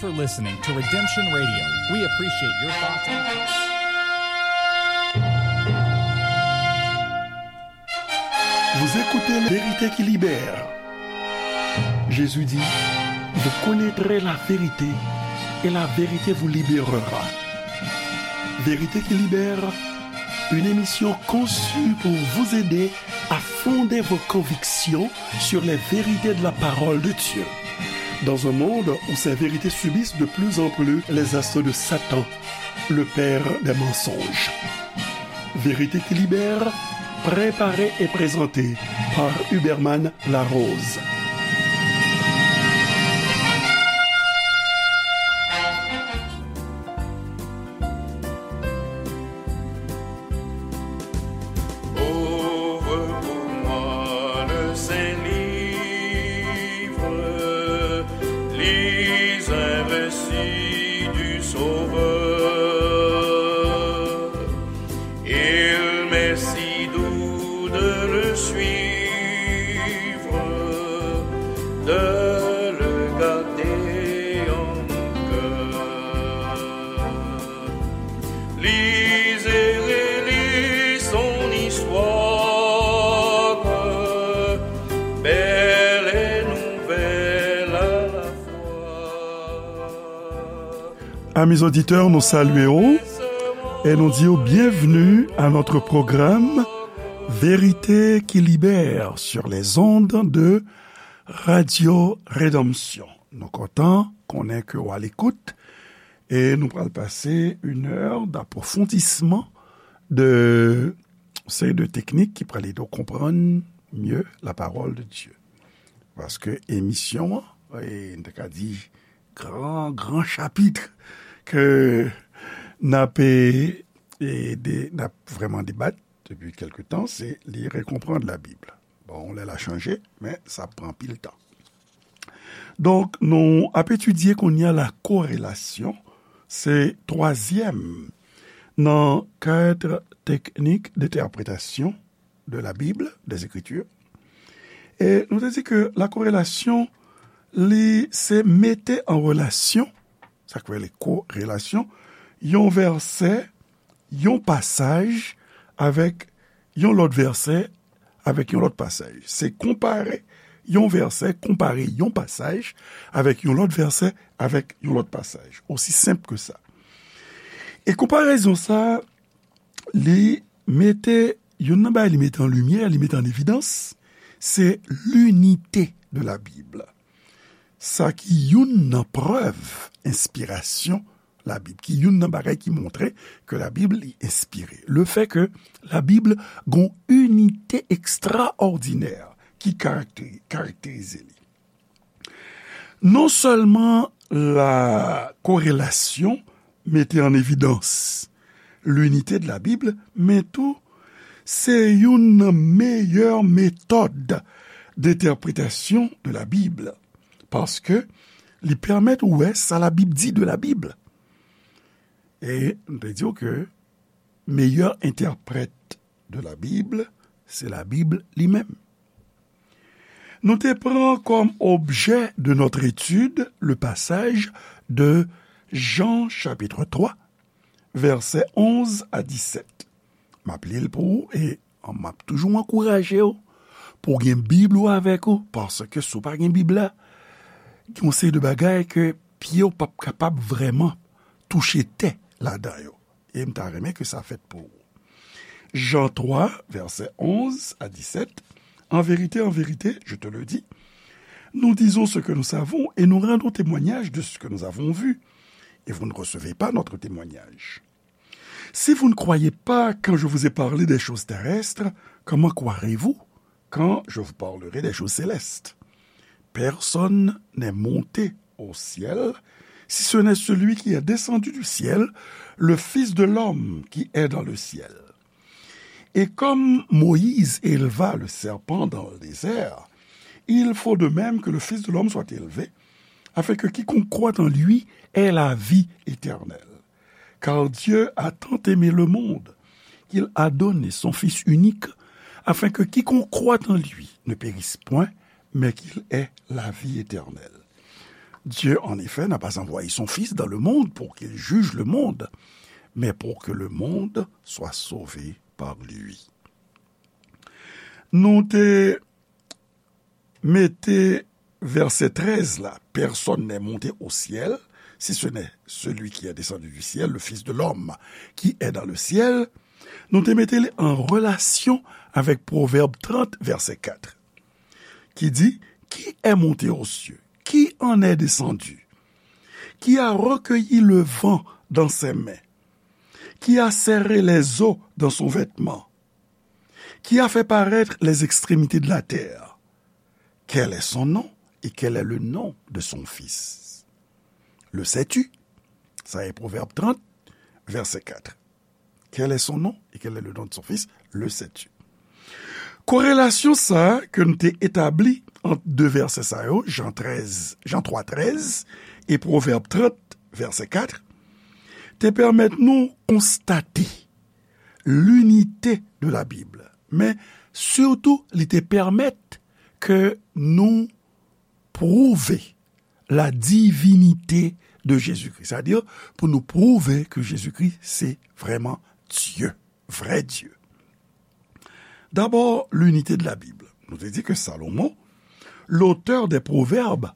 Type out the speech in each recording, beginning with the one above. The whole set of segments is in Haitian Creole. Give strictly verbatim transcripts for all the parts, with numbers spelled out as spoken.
for listening to Redemption Radio. We appreciate your thoughts and Vous écoutez La vérité qui libère. Jésus dit, vous connaîtrez la vérité et la vérité vous libérera. Vérité qui libère, une émission conçue pour vous aider à fonder vos convictions sur les vérités de la parole de Dieu. Dans un monde où ces vérités subissent de plus en plus les assauts de Satan, le père des mensonges. Vérité qui libère, préparée et présentée par Huberman Larose. Ouvre pour moi le saint livre, lis un récit du Sauveur. Il m'est si doux de le suivre, de le garder en mon cœur. Lis et relis son histoire, belle et nouvelle à la fois. Amis auditeurs, nous saluons et nous disons bienvenue à notre programme Vérité qui libère sur les ondes de Radio Rédemption. Nou kontan konnen ke w a lekout e nou pral pase une heure d'approfondissement de seri de teknik ki pral ede w konprann mieux la parole de Dieu. Paske emisyon an, e, n te ka di gran, gran chapit ke n ap, e, e, de, n ap vrèman debat depi kèlke tan, se li rekonprann Labib. Bon, lè l a chanje, men sa ap pran anpil tan. Donk, nou ap etidye kounye a la korelasyon, se twazyèm nan kat teknik d'entèpretasyon de la Bible, des Écritures. E nou te di ke la korelasyon, li se mete an relasyon, sa k rele korelasyon, yon vèsè, yon pasaj avèk yon lòt vèsè, avèk yon lòt pasaj. Se konpare yon vèsè, konpare yon pasaj avèk yon lòt vèsè, avèk yon lòt pasaj. Osi senp ke sa. E konparezon sa, li mete, youn nan bagay li mete an limyè, li mete an evidans, se linite de la Bible. Sa ki youn nan prèv enspirasyon Labib, ki youn nan bagay ki montre ke Labib li enspire. Le fè ke Labib gon inite ekstraòdinè ki karakte-, karakterize li. Non sèlman la korelasyon mete an evidans linite de la Bible, men tou se youn nan meyè metòd d'entèpretasyon de la Bible, paske li pèmèt ou wè sa Labib di de Labib. E m te di w ke meyè entèprèt de la Bible, se Labib li menm. Nou te pran comme objet de notre étude le passage de Jean chapitre trois, vèsè onz a disèt. M ap li l pou ou e m ap toujou ankouraje w pou w gen Bib ou avèk ou, paske si w pa gen Bib la, gen yon seri de bagay ke pye w p ap kapab vrèman touche tè ladan yo. E m ta renmen ke sa fèt pou ou. Jean trois, vèsè onz a disèt, En vérité, en vérité, je te le dis, nous disons ce que nous savons et nous rendons témoignage de ce que nous avons vu, et vous ne recevez pas notre témoignage. Si vous ne croyez pas quand je vous ai parlé des choses terrestres, comment croirez-vous quand je vous parlerai des choses célestes ? Personne n'est monté au ciel, si ce n'est celui qui est descendu du ciel, le Fils de l'homme qui est dans le ciel. Et comme Moïse éleva le serpent dans le désert, il faut de même que le Fils de l'homme soit élevé, afin que quiconque croit en lui ait la vie éternelle. Car Dieu a tant aimé le monde qu'il a donné son Fils unique, afin que quiconque croit en lui ne périsse point, mais qu'il ait la vie éternelle. Dieu, en effet, n'a pas envoyé son Fils dans le monde pour qu'il juge le monde, mais pour que le monde soit sauvé par lui. Nou te mete vèsè trèz la, personne n'est monté au ciel, si ce n'est celui qui est descendu du ciel, le Fils de l'homme qui est dans le ciel. Nou te mete li an relasyon avèk Pwovèb trant, vèsè kat, ki di, qui est monté aux cieux, qui en est descendu, qui a recueilli le vent dans ses mains, qui a serré les eaux dans son vêtement, qui a fait paraître les extrémités de la terre. Quel est son nom et quel est le nom de son fils? Le sais-tu? Sa e Pwovèb trant, vèsè kat. Quel est son nom et quel est le nom de son fils? Le sais-tu? Korelasyon sa a ke n te etabli ant de vèsè sa yo, Jan trèz, Jan twa trèz e Pwovèb trant, vèsè kat, te pèmèt nou konstate l'unité de la Bible. Men, sitou, li te pèmèt ke nou pwouve la divinité de Jésus-Christ. Sètadi, pou nou pwouve ke Jezikri se vrèman Dye, vrè Dye. D'abord, l'unité de la Bible. Nou te di ke Salomon, l'auteur des Proverbes,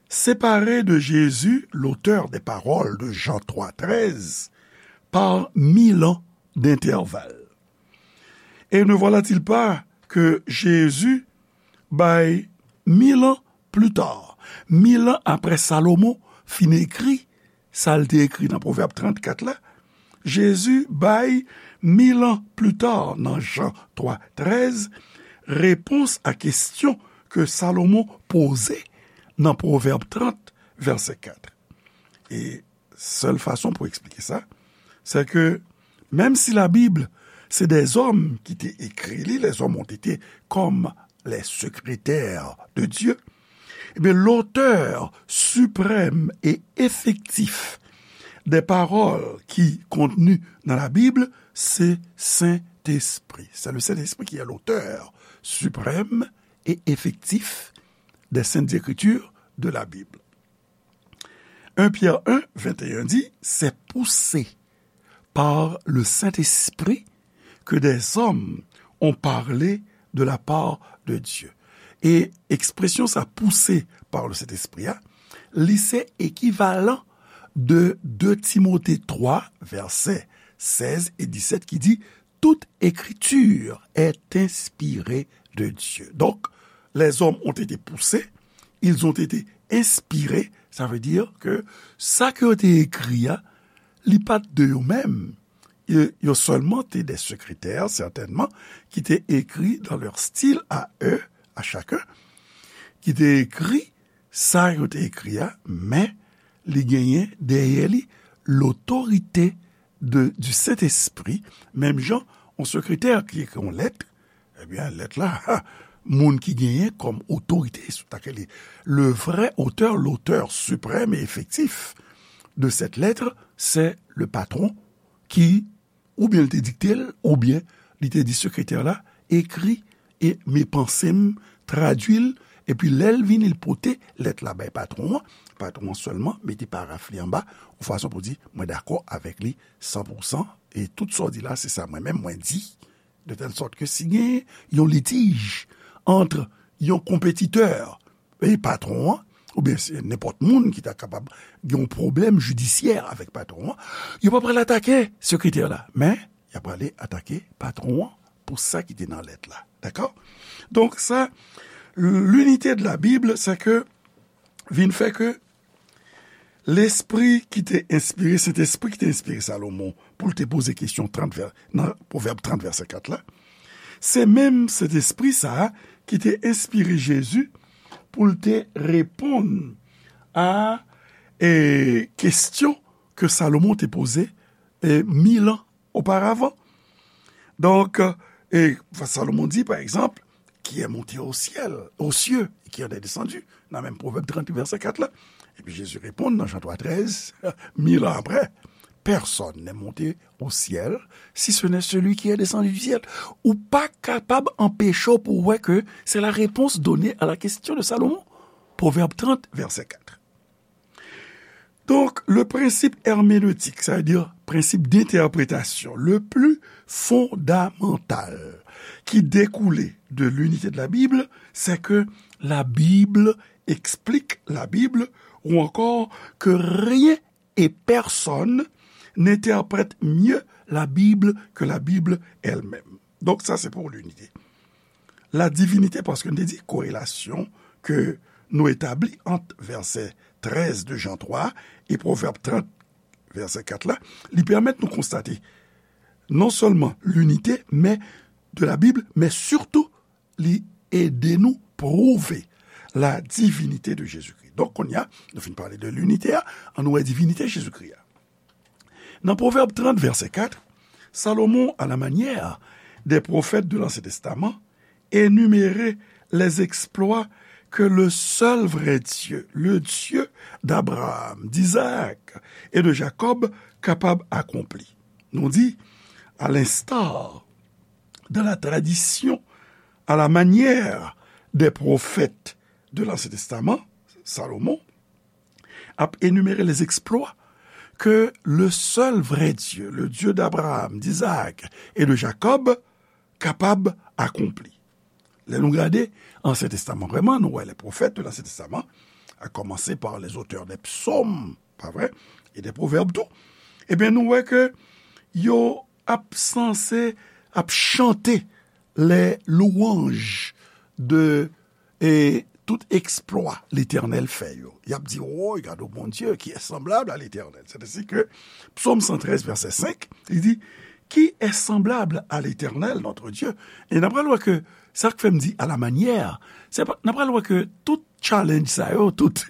séparé de Jésus, l'auteur des paroles de Jean trois treize, par mille ans d'intervalle. Et ne voilà-t-il pas que Jésus bay mil an pli ta, mil an apre Salomon fin ekri sa l te ekri nan Pwovèb trannkat la, Jezi bay mil an pli ta nan Jan twa trèz, repons a kesyon ke Salomon poze nan Pwovèb trant, vèsè kat. E sèl fason pou eksplike sa, se ke menm si Labib se dèzòm ki te ekri li, les hommes ont été comme les secrétaires de Dieu, eh bien, l'auteur suprême et effectif des paroles qui contenues dans la Bible, c'est Saint-Esprit. C'est le Saint-Esprit qui est l'auteur suprême et effectif des Saintes Écritures, de la Bible. Un Pierre un, vingt et un dit, c'est poussé par le Saint-Esprit que des hommes ont parlé de la part de Dieu. E ekspresyon sa, poussé par le Saint-Esprit a, li se ekivalan de de Timote twa, vèsè sèz e disèt, ki di, toute écriture est inspirée de Dieu. Donc, les hommes ont été poussés, ils ont été inspirés, sa vle di ke sa ke yo te ekri a, li pa t de yo menm. Yo, yo sèlman te de sekretè, sètènman, ki te ekri dans leur style à eux, à chacun, ki te ekri sa yo te ekri a, men li genyen dèyè li lotorite de, du Saint-Esprit, menm jan yon sekretè ki ekri yon lèt, ebyen, lèt la, ha, moun ki genyen kòm otorite sou ta ke li. Le vrai auteur, l'auteur suprême et effectif de cette lettre, c'est le patron qui, oubyen li te dikte l, oubyen li te di sekretè la, ekri e men panse m, tradui l, epi lè l vini, l pote lèt la bay patwon an, patwon an sèlman mete paraf li anba, yon fason pou di, mwen dakò avèk li san pou san, e tout sa w di la, se sa mwen menm mwen di, de tèl sòt ke si gen yon litij ant yon konpetitè e patwon an, oubyen se nenpòt moun ki ta kapab gen yon pwoblèm jidisyè avèk patwon an, yo pa pral atake sekretè la, men y ap prale atake patwon an pou sa ki te nan lèt la. Dakò? Donk, sa, l'unité de la Bible, se ke vin fè ke Lespri ki te enspire, Sentespri ki te enspire Salomon pou l te poze kesyon trant vè-, nan Pwovèb trant, vèsè kat la, se menm Sentespri sa a ki te enspire Jezi pou l te reponn a, e, kesyon ke Salomon te poze, e, mil an oparavan. Donk, e, Salomon di, pa egzanp, qui est monté au ciel, aux cieux, et qui en est descendu, nan menm Pwovèb trant, vèsè kat la. Epi Jezi reponn nan Jan twa trèz, mil an apre, personne n'est monté au ciel, si ce n'est celui qui est descendu du ciel. Ou pa kapab anpeche w pou w wè ke c'est la réponse donnée à la question de Salomon. Pwovèb trant, vèsè kat. Donc, le principe herméneutique, ça veut dire principe d'interprétation le plus fondamental qui découle de l'unité de la Bible, c'est que la Bible explique la Bible, ou encore que rien et personne n'interprète mieux la Bible que la Bible elle-même. Donc, ça, c'est pour l'unité. La divinité, paske nou te di korelasyon ke nou etabli ant vèsè trèz de Jan twa e Pwovèb trant, vèsè kat la, li pèmèt nou konstate non sèlman linite, men de la Bib, men sitou li ede nou pwouve la divinite de Jezikri. Donk, kounye a, nou fin pale de linite a, ann nou wè divinite Jezikri a. Nan Pwovèb trant, vèsè kat, Salomon, à la manière des prophètes de l'Ancien Testament, énumère les exploits que le seul vrai Dieu, le Dieu d'Abraham, d'Isaac et de Jacob, kapab akonpli. Nou di, à l'instar de la tradition, à la manière des prophètes de l'Ancien Testament, Salomon ap enimere les exploits que le seul vrai Dieu, le Dieu d'Abraham, d'Isaac et de Jacob, kapab akonpli. Lè nou gade Ansyen Testaman, vrèman, nou wè les prophètes de l'Ancien Testament, à commencer par les auteurs des psaumes, pa vre, et des proverbes tou, ebyen, nou wè ke yo ap sanse, ap chante les louanges de, e, tout eksplwa Letènèl fè yo. Y ap di, woy, gade Bondye, qui est semblable à l'Éternel. C'est ainsi que Psaume cent treize, verset cinq, li di, qui est semblable à l'Éternel, notre Dieu? E n ap pral wè ke sa k fè m di à la manière, se pa, n ap pral wè ke tout challenge sa yo, tout,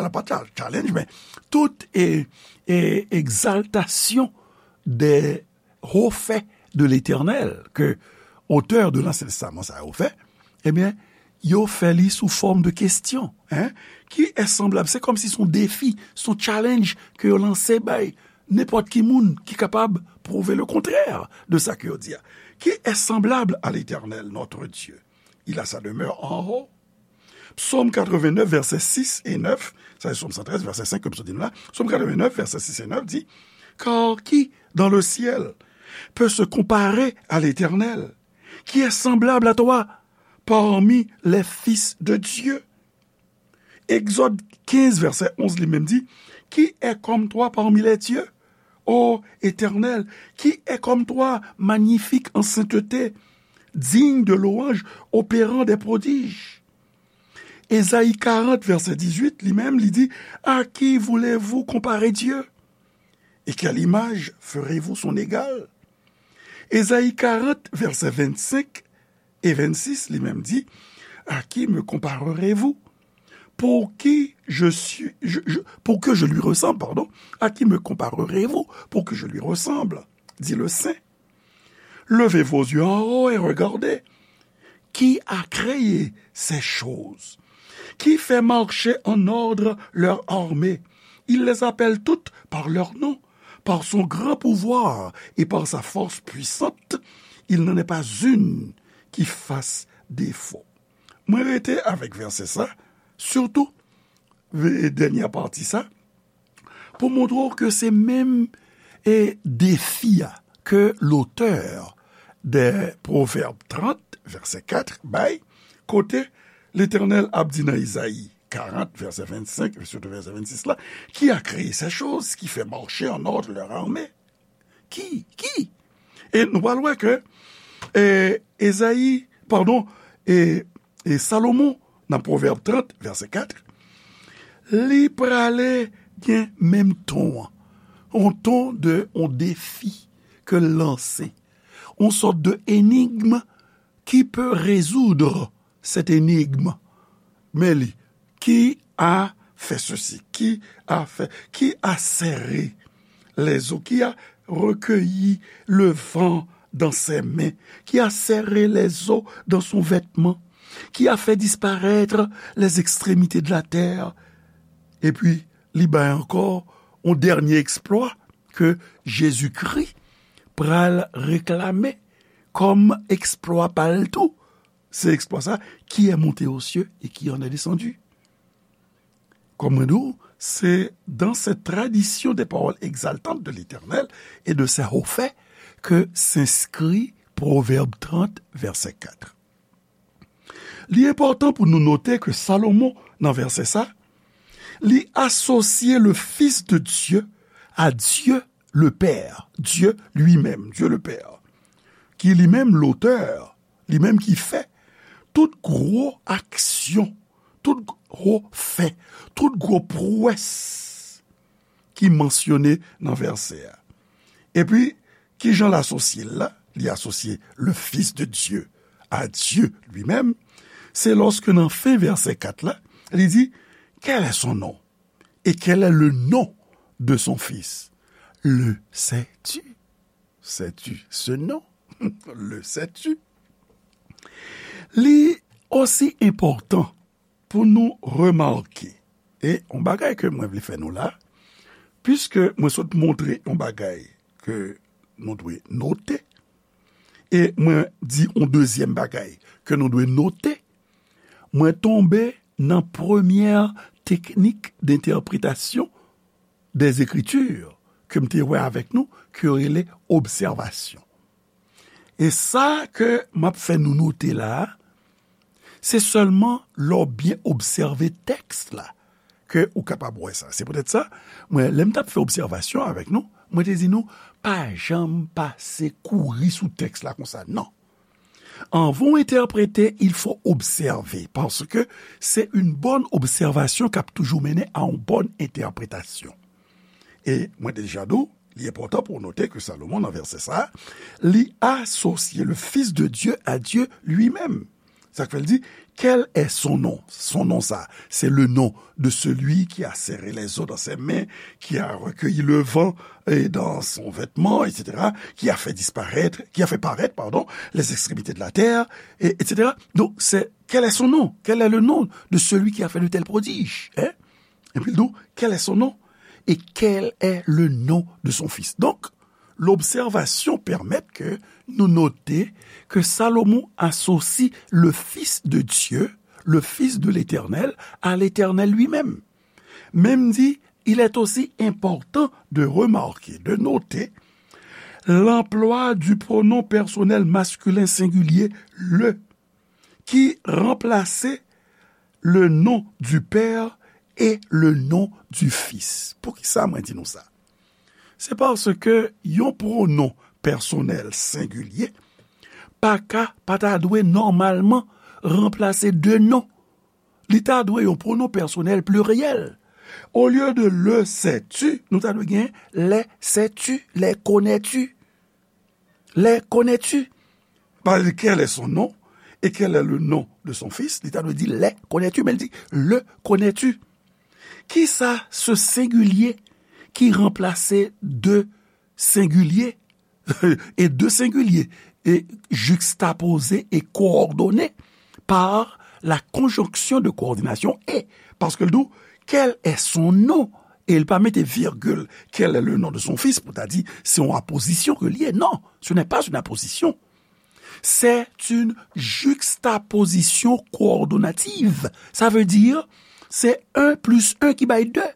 ala pa cha-, challenge, men tout e, e, egzaltasyon des hauts faits de l'Éternel, ke otè de l'Ancien Testament sa yo fè, ebyen, yo fè li sou fòm de kesyon, hein, qui est semblable, se kòmsi se yon defi, se yon challenge ke yo lanse bay nenpòt ki moun ki kapab pwouve le contraire de sa ke yo di a. Qui est semblable à l'Éternel, notre Dieu? Il a sa demeure en haut. Psaume quatre-vingt-neuf, vèsè sis e nèf, sa se Psaume cent treize, vèsè cinq ke m sot di nou la. Psaume quatre-vingt-neuf, vèsè sis e nèf di, car qui dans le ciel peut se comparer à l'Éternel? Qui est semblable à toi parmi les fils de Dieu? Exode quinze, verset onze, li menm di, qui est comme toi parmi les dieux, ô Éternel? Qui est comme toi, magnifique en sainteté, digne de louange, opérant des prodiges? Ésaïe quarante, verset dix-huit, li menm, li di, à qui voulez-vous comparer Dieu? Et quelle image ferez-vous son égal? Ésaïe quarante, verset vingt-cinq et vingt-six, li menm di, à qui me comparerez-vous? Pour qui je suis, je, je, pour que je lui ressemble, pardon. À qui me comparerez-vous pour que je lui ressemble? Dit le Saint. Levez vos yeux en haut et regardez. Qui a créé ces choses? Qui fait marcher en ordre leur armée? Il les appelle toutes par leur nom. Par son grand pouvoir et par sa force puissante, il n'en est pas une qui fasse défaut. Mwen rete avèk vèsè sa, sitou, ve-, dènyè pati sa, pou montre w ke se menm, e, defi a ke lotè de Pwovèb trant, vèsè kat, bay, kote Letènèl ap di nan Izayi karant, vèsè vennsenk, sitou vèsè vennsis la, qui a créé ces choses, qui fait marcher en ordre leur armée? Ki? Ki? E nou pral wè ke, e, Ezayi, padon, e, e Salomon, nan Pwovèb trant, vèsè kat, li prale gen menm ton an. On ton de, on defi ke l lanse. On sòt de enigm qui peut résoudre cette énigme. Men li, qui a fait ceci, qui a fait, qui a serré les eaux, qui a recueilli le vent dans ses mains, qui a serré les eaux dans son vêtement, qui a fait disparaître les extrémités de la terre. Epi, li bay ankò yon dènye eksplwa ke Jezikri pral reklame kòm eksplwa pa l tou. Se eksplwa sa, qui est monté aux cieux et qui en est descendu. Kòm mwen di w, C'est dans cette tradition des paroles exaltantes de l'Éternel et de ses hauts faits que s'inscrit Proverbe trente, verset quatre. Li enpòtan pou nou note ke Salomon, nan vèsè sa, li asosye le Fils de Dieu à Dieu le Père, Dieu lui-même, Dieu le Père, ki li menm lotè, li menm ki fè tout gwo aksyon, tout gwo fè, tout gwo pwès ki mansyone nan vèsè a. Epi, kijan l asosye l la? Li asosye le Fils de Dieu à Dieu lui-même. Se lòske nan fen vèsè kat la, li di, quel est son nom? Et quel est le nom de son fils? Le sais-tu? Sais-tu ce nom? Le sais-tu? Li osi enpòtan pou nou remake, e yon bagay ke mwen vle fè nou la, piske mwen sot montre yon bagay ke nou dwe note, e mwen di yon dezyèm bagay ke nou dwe note, mwen tonbe nan premyè teknik d'entèpretasyon des Écritures ke m te wè avèk nou, ke yo rele obsèvasyon. E sa ke m ap fè nou note la a, se sèlman lè w byen obsève tèks la ke ou kapab wè sa. Se poutèt sa, mwen, lè m t ap fè obsèvasyon avèk nou, mwen te di nou, pa janm pase kouri sou tèks la konsa, non. Anvan w entèprete, il faut observer, paske se yon bòn obsèvasyon k ap toujou mennen a yon bòn entèpretasyon. E mwen te deja di w, li enpòtan pou w note ke Salomon, nan vèsè sa a, li asosye le Fils de Dieu à Dieu lui-même. Sa k fè l di, quel est son nom? Son nom sa, c'est le nom de celui qui a serré les eaux dans ses mains, qui a recueilli le vent et dans son vêtement, et cetera, qui a fait disparaître, qui a fait paraître, pardon, les extrémités de la terre, et, et cetera. Donc, c'est, quel est son nom? Quel est le nom de celui qui a fait de tels prodiges? Hein? Epi l di w, quel est son nom? Et quel est le nom de son fils? Donk, lobsèvasyon pèmèt ke nou note ke Salomon asosye le Fils de Dieu, le Fils de l'Éternel, à l'Éternel lui-même. Men m di, il est aussi important de remarquer, de noter, l'emploi du pronom personnel masculin singulier le, ki ranplase le nom du Père et le nom du Fils. Poukisa mwen di nou sa? Se paske yon pwonon pèsonèl sengilye pa ka, pa ta dwe nòmalman ranplase de non. Li ta dwe yon pwonon pèsonèl pliryèl. Olye de le sais-tu, nou ta dwe gen les sais-tu, les connais-tu. Les connais-tu? Pa li, quel est son nom et quel est le nom de son fils? Li ta dwe di les connais-tu, men li di le connais-tu. Kisa se sengilye ki ranplase de sengilye e de sengilye e juxtapoze e kowòdone par la conjonction de coordination et, paske l di w, quel est son nom? E l pa mete virgil, quel est le nom de son fils, pou ta di se yon apozisyon ke l ye. Non, ce n'est pas une apposition. C'est une juxtaposition coordonnative. Sa vle di, se un plus un ki bay de.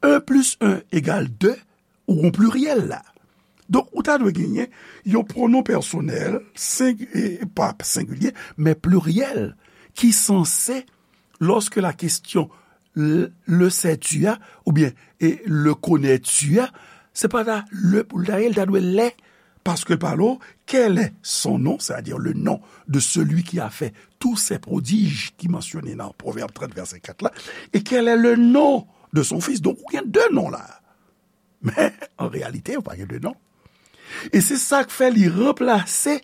Un plus un égal deux, ou gon pliryèl la. Donk, ou ta dwe genyen yon pwonon pèsonèl, seng-, e, pa sengilye, men pliryèl, ki sanse, lòske la kesyon le, le sais-tu a, oubyen, e, le connais-tu a, se pa ta le pou l ta ye, l ta dwe les, paske l pale w, quel est son nom, c'est-à-dire le nom de celui qui a fait tous ces prodiges ki mansyone nan Pwovèb trant, vèsè kat la, et quel est le nom de son fils. Donk, ou gen de non la. Men, an reyalite, ou pa gen de non. E se sa k fè li ranplase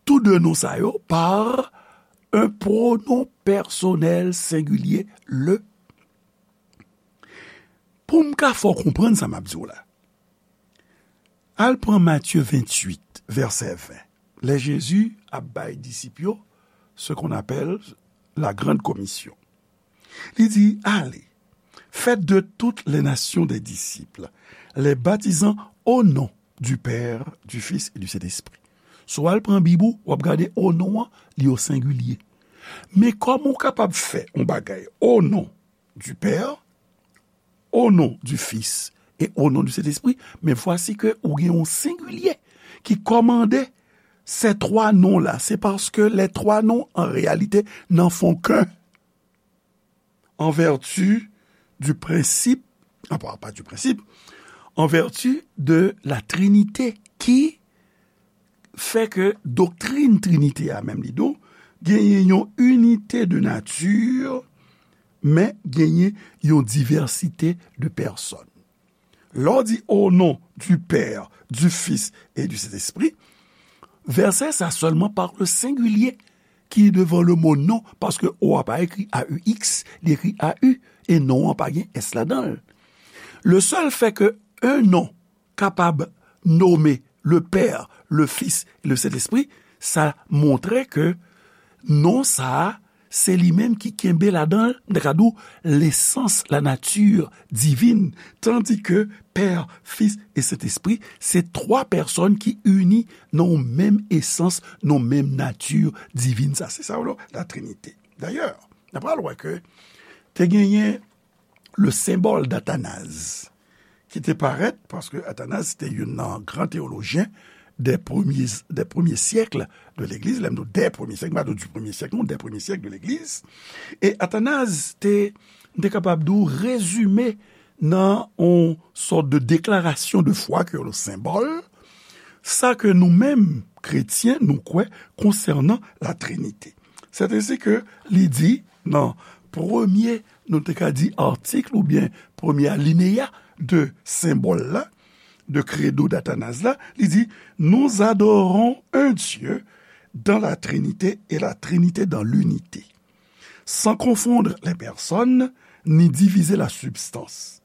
tou de non sa yo par un pronom personnel singulier, le. Pou m ka fè w konprann sa m ap di w la, al pran Matye venntuit, vèsè ven, lè Jezi ap bay disip yo ce qu'on appelle la grande commission. Li di, allez, faites de toutes les nations des disciples, les baptisant au nom du Père, du Fils et du Saint-Esprit. Si w al pran Bib ou, w ap gade o non an, li o sengilye. Men kòman w kapab fè yon bagay o non du Père, au nom du Fils et au nom du Saint-Esprit, mais voici que ou gen yon sengilye ki kòmande ces trois noms-là. C'est parce que les trois noms, en réalité, n'en font qu'un. En vertu du principe, ah, pas, pas du principe, en vertu de la Trinité qui fè ke doktrin Trinité a menm li di w, genyen yon inite de nati, men genyen yon divèsite de pèsòn. Lè w di au nom du Père, du Fils et du Saint-Esprit, vèsè sa sèlman parle sengilye ki devan le mo non, paske o a pa ekri A U X, li ekri A U, e non an pa gen S ladan l. Le sèl fè ke un nom kapab nome le Père, le Fils et le Saint-Esprit, sa montre ke non sa a, se li menm ki kenbe ladan l, m ta ka di w, lesans, la nature divine, tandis que Père, Fils et Saint-Esprit, se twa pèsòn ki ini nan yon menm esans, nan yon menm nati divin. Sa, se sa, w, la Trinité. Dayè, n ap pral wè ke te genyen le symbole d'Athanase, ki te parèt, paske Athanase te youn nan gran teyolojyen des premiers, des premiers siècles de l'Église, lè m di w des premiers siècles, m pa di w du premier siècle, non, des premiers siècles de l'Église. E Athanase te, m te kapab di w, rezime nan yon sòt de déclaration de foi ke le symbole, sa ke nou menm, kretyen, nou kwè konsènan la Trinité. C'est ainsi que li di nan premye, nou te ka di, atik oubyen premye alineya de senbòl la, de credo d'Athanase la, li di, nous adorons un Dieu dans la Trinité et la Trinité dans l'unité, sans confondre les personnes ni diviser la substance.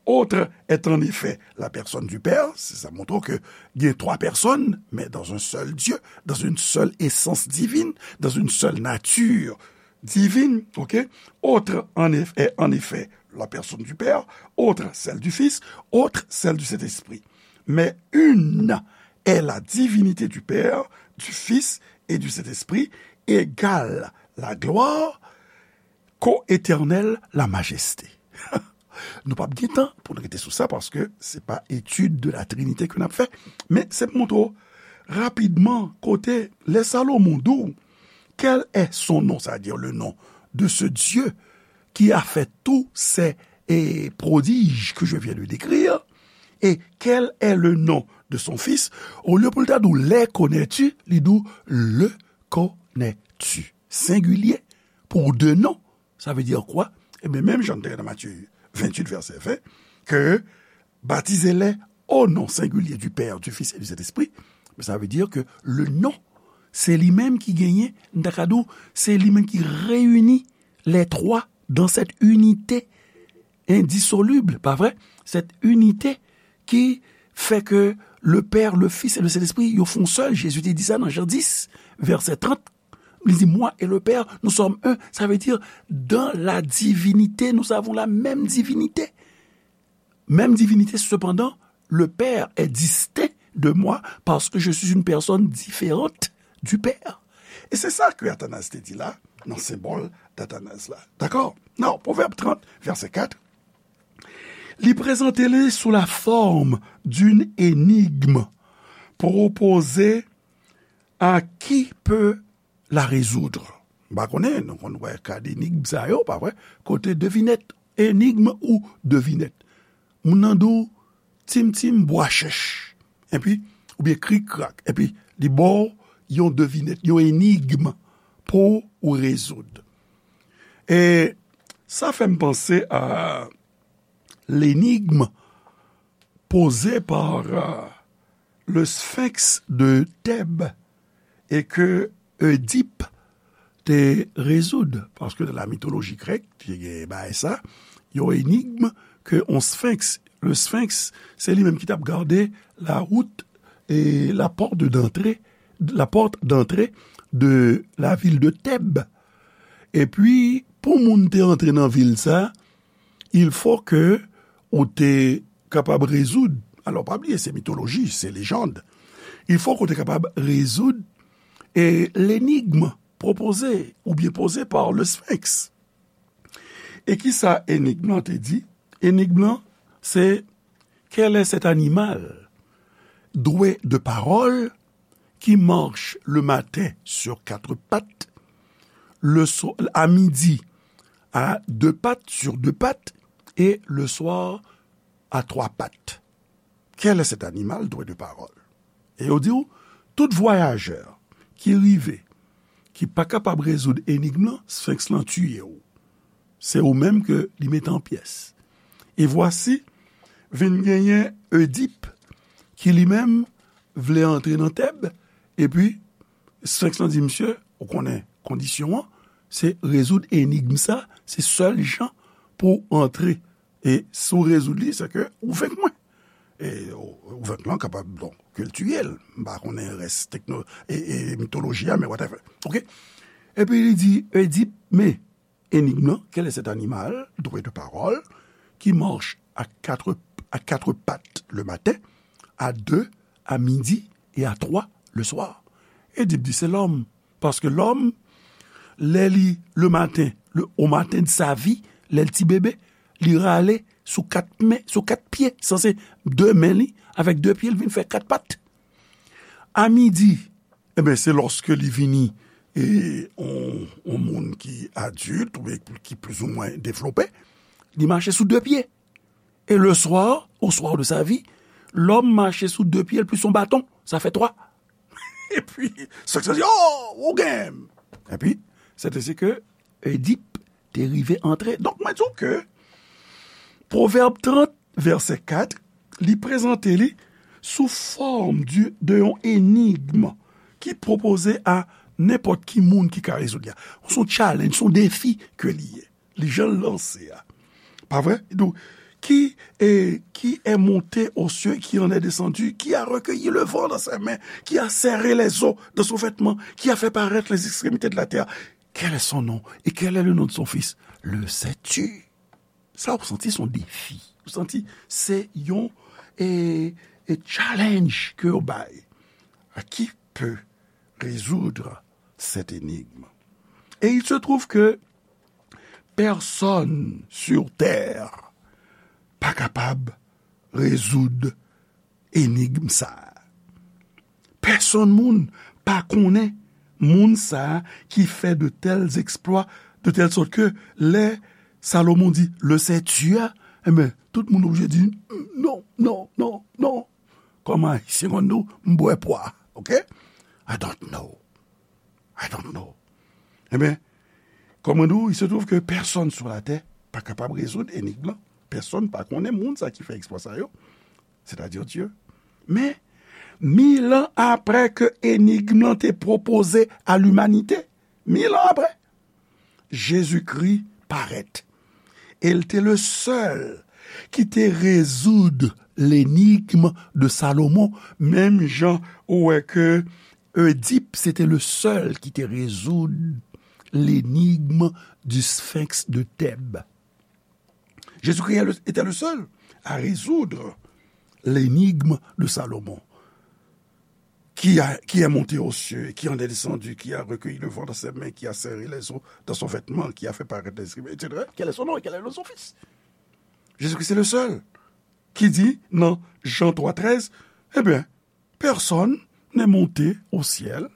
Autre est en effet la personne du Père, se sa montre ke gen twa pèsòn, mais dans un seul Dieu, dans une seule essence divine, dans une seule nature divine, ok? Autre en eff-, est en effet la personne du Père, autre celle du Fils, autre celle du Saint-Esprit. Mais une est la divinité du Père, du Fils et du Saint-Esprit, égale la gloire, co-éternelle la majesté. Nou p ap gen tan pou n rete sou sa, paske se pa etid de la Trinité ke n ap fè. Men se pou montre w rapidman kote lè Salomon di w, quel est son nom, c'est-à-dire le nom de ce Dieu qui a fait tous ces, eh, prodiges que je viens de décrire, et quel est le nom de son fils, olye pou l ta di w, les connais-tu, li di w, le connais-tu. Sengilye, pou de non. Sa vle di kwa? Ebyen, menm jan n te nan Matye venntuit, vèsè ven, ke baptisez-les au nom singulier du Père, du Fils et du Saint-Esprit. Men sa vle di ke le non, se li menm ki genyen, m ta ka di w, se li menm ki reyini les trois dans cette unité indissoluble, pa vre? Cette unité ki fè ke le Père, le Fils et le Saint-Esprit, yo fè yon sèl. Jezi te di sa nan Jan dis, vèsè trant. Li di, moi et le Père, nous sommes un. Ça veut dire, dans la divinité, nous avons la même divinité. Même divinité, cependant, le Père est distinct de moi parce que je suis une personne différente du Père. E se sa ke Athanase te di la, nan senbòl d'Athanase la. Dakò? Nan Pwovèb trant, vèsè kat, li prezante li sou la forme d'une énigme proposée à qui peut la résoudre. M pa konnen, nou konn wè kad enigm sa yo, pa vre? Kote devinèt, enigm ou devinèt. Moun nan di w, tim tim bwa chèch. Epi, oubyen krik krak. Epi, li ba w yon devinèt, yon enigm pou ou rezoud. E sa fè m panse a l'énigme posée par, euh, le Sphinx de Thèbes et que Oedipe te rezoud, paske nan la mitoloji grèk, te gen bagay sa, yon enigm ke yon sphinx, le sphinx, se li menm ki t ap gade la wout e la pòt de, d'antre, la porte d'entrée de la ville de Thèbes. Epi, pou moun te antre nan vil sa, il faut que ou te kapab rezoud, alò pa bliye, se mitoloji, se lejand. Il faut que ou te kapab rezoud, e, l'énigme proposée oubyen posée par le Sphinx. E kisa enigm lan te di? Enigm lan, se: quel est cet animal doué de parole qui marche le matin sur quatre pattes, le so- à midi à deux pattes, sur deux pattes, et le soir à trois pattes? Quel est cet animal doué de parole? E yo di w, tout vwayajè ki rive, ki pa kapab rezoud enigm lan, Sphinx lan tiye w. Se ou menm ke li mete an pyès. E vwasi, vin genyen Edip, ki li menm vle antre nan Tèb, epi Sphinx lan di, misye, ou konnen kondisyon an, se rezoud enigm sa, se sèl jan pou w antre. E si w rezoud li, se ke ou venk mwen. E ou, ou venk lan kapab, donk, ke l tiye l. M pa konnen rès tekno, e, e mitoloji a, men whatever. Oke? Epi li di, Edip, men, enigm lan, quel est cet animal doué de parole qui marche à quatre, à quatre pattes le matin, à deux à midi et à trois le soir? Edip di, se lòm. Paske lòm, lè li, le maten, le, au matin de sa vie, lè l ti bebe, li rale sou kat men, sou kat pye, sanse de men li, avèk de pye, l vin fè kat pat. A midi, e ben, se lòske li vini, e, on, on moun ki adilt, oubyen ki plizoumwen devlope, li mache sou de pye. E le soir, au soir de sa vie, lòm mache sou de pye l plis yon baton, sa fè twa. Epi, Sphinx lan di, oh, ou gen m. Epi, se te si ke Edip te rive antre. Donk, mwen di w ke Pwovèb trant, vèsè kat, li prezante li sou fòm di, de yon enigm ki pwopoze a nenpòt ki moun ki ka rezoud li a. Se yon challenge, se yon defi ke li ye. Li jan l lanse a. Pa vre? Donk, qui est, qui est monté aux cieux, qui en est descendu, qui a recueilli le vent dans ses mains, qui a serré les eaux dans son vêtement, qui a fait paraître les extrémités de la terre. Quel est son nom et quel est le nom de son fils? Le sais-tu? Sa ou santi se yon defi. Ou santi se yon, e, e challenge ke yo bay. À qui peut résoudre cette énigme? Et il se trouve que personne sur terre pa kapab rezoud enigm sa a. Pèsonn moun pa konnen moun sa a ki fè de tels exploits, de telle sorte que lè Salomon di, le sais-tu a, e ben, tout moun oblije di, non, non, non, non. Kòm Ayisyen konn di w, m bwè pwa, oke? I don't know. I don't know. E ben, kòm mwen di w, il se trouve que personne sur la terre pa kapab rezoud enigm lan. Pèsonn pa konnen moun sa ki fè eksplwa sa yo, sètadi Dye. Men, mil an apre ke enigm lan te pwopoze a limanite, mil an apre, Jezikri parèt. E l te le sèl ki te rezoud lenigm de Salomon, menm jan ou wè ke Oedip, se te le sèl ki te rezoud lenigm du Sphinx de Thèbes. Jésus-Christ est le- était le seul à résoudre l'énigme de Salomon. Qui a, qui est monté aux cieux, qui en est descendu, qui a recueilli le vent dans ses mains, qui a serré les eaux dans son vêtement, qui a fait paraître les escrimés, et cetera. Quel est son nom et quel est le nom de son fils? Jésus-Christ est le seul qui dit, dans Jean trois treize, eh bien, personne n'est monté au ciel,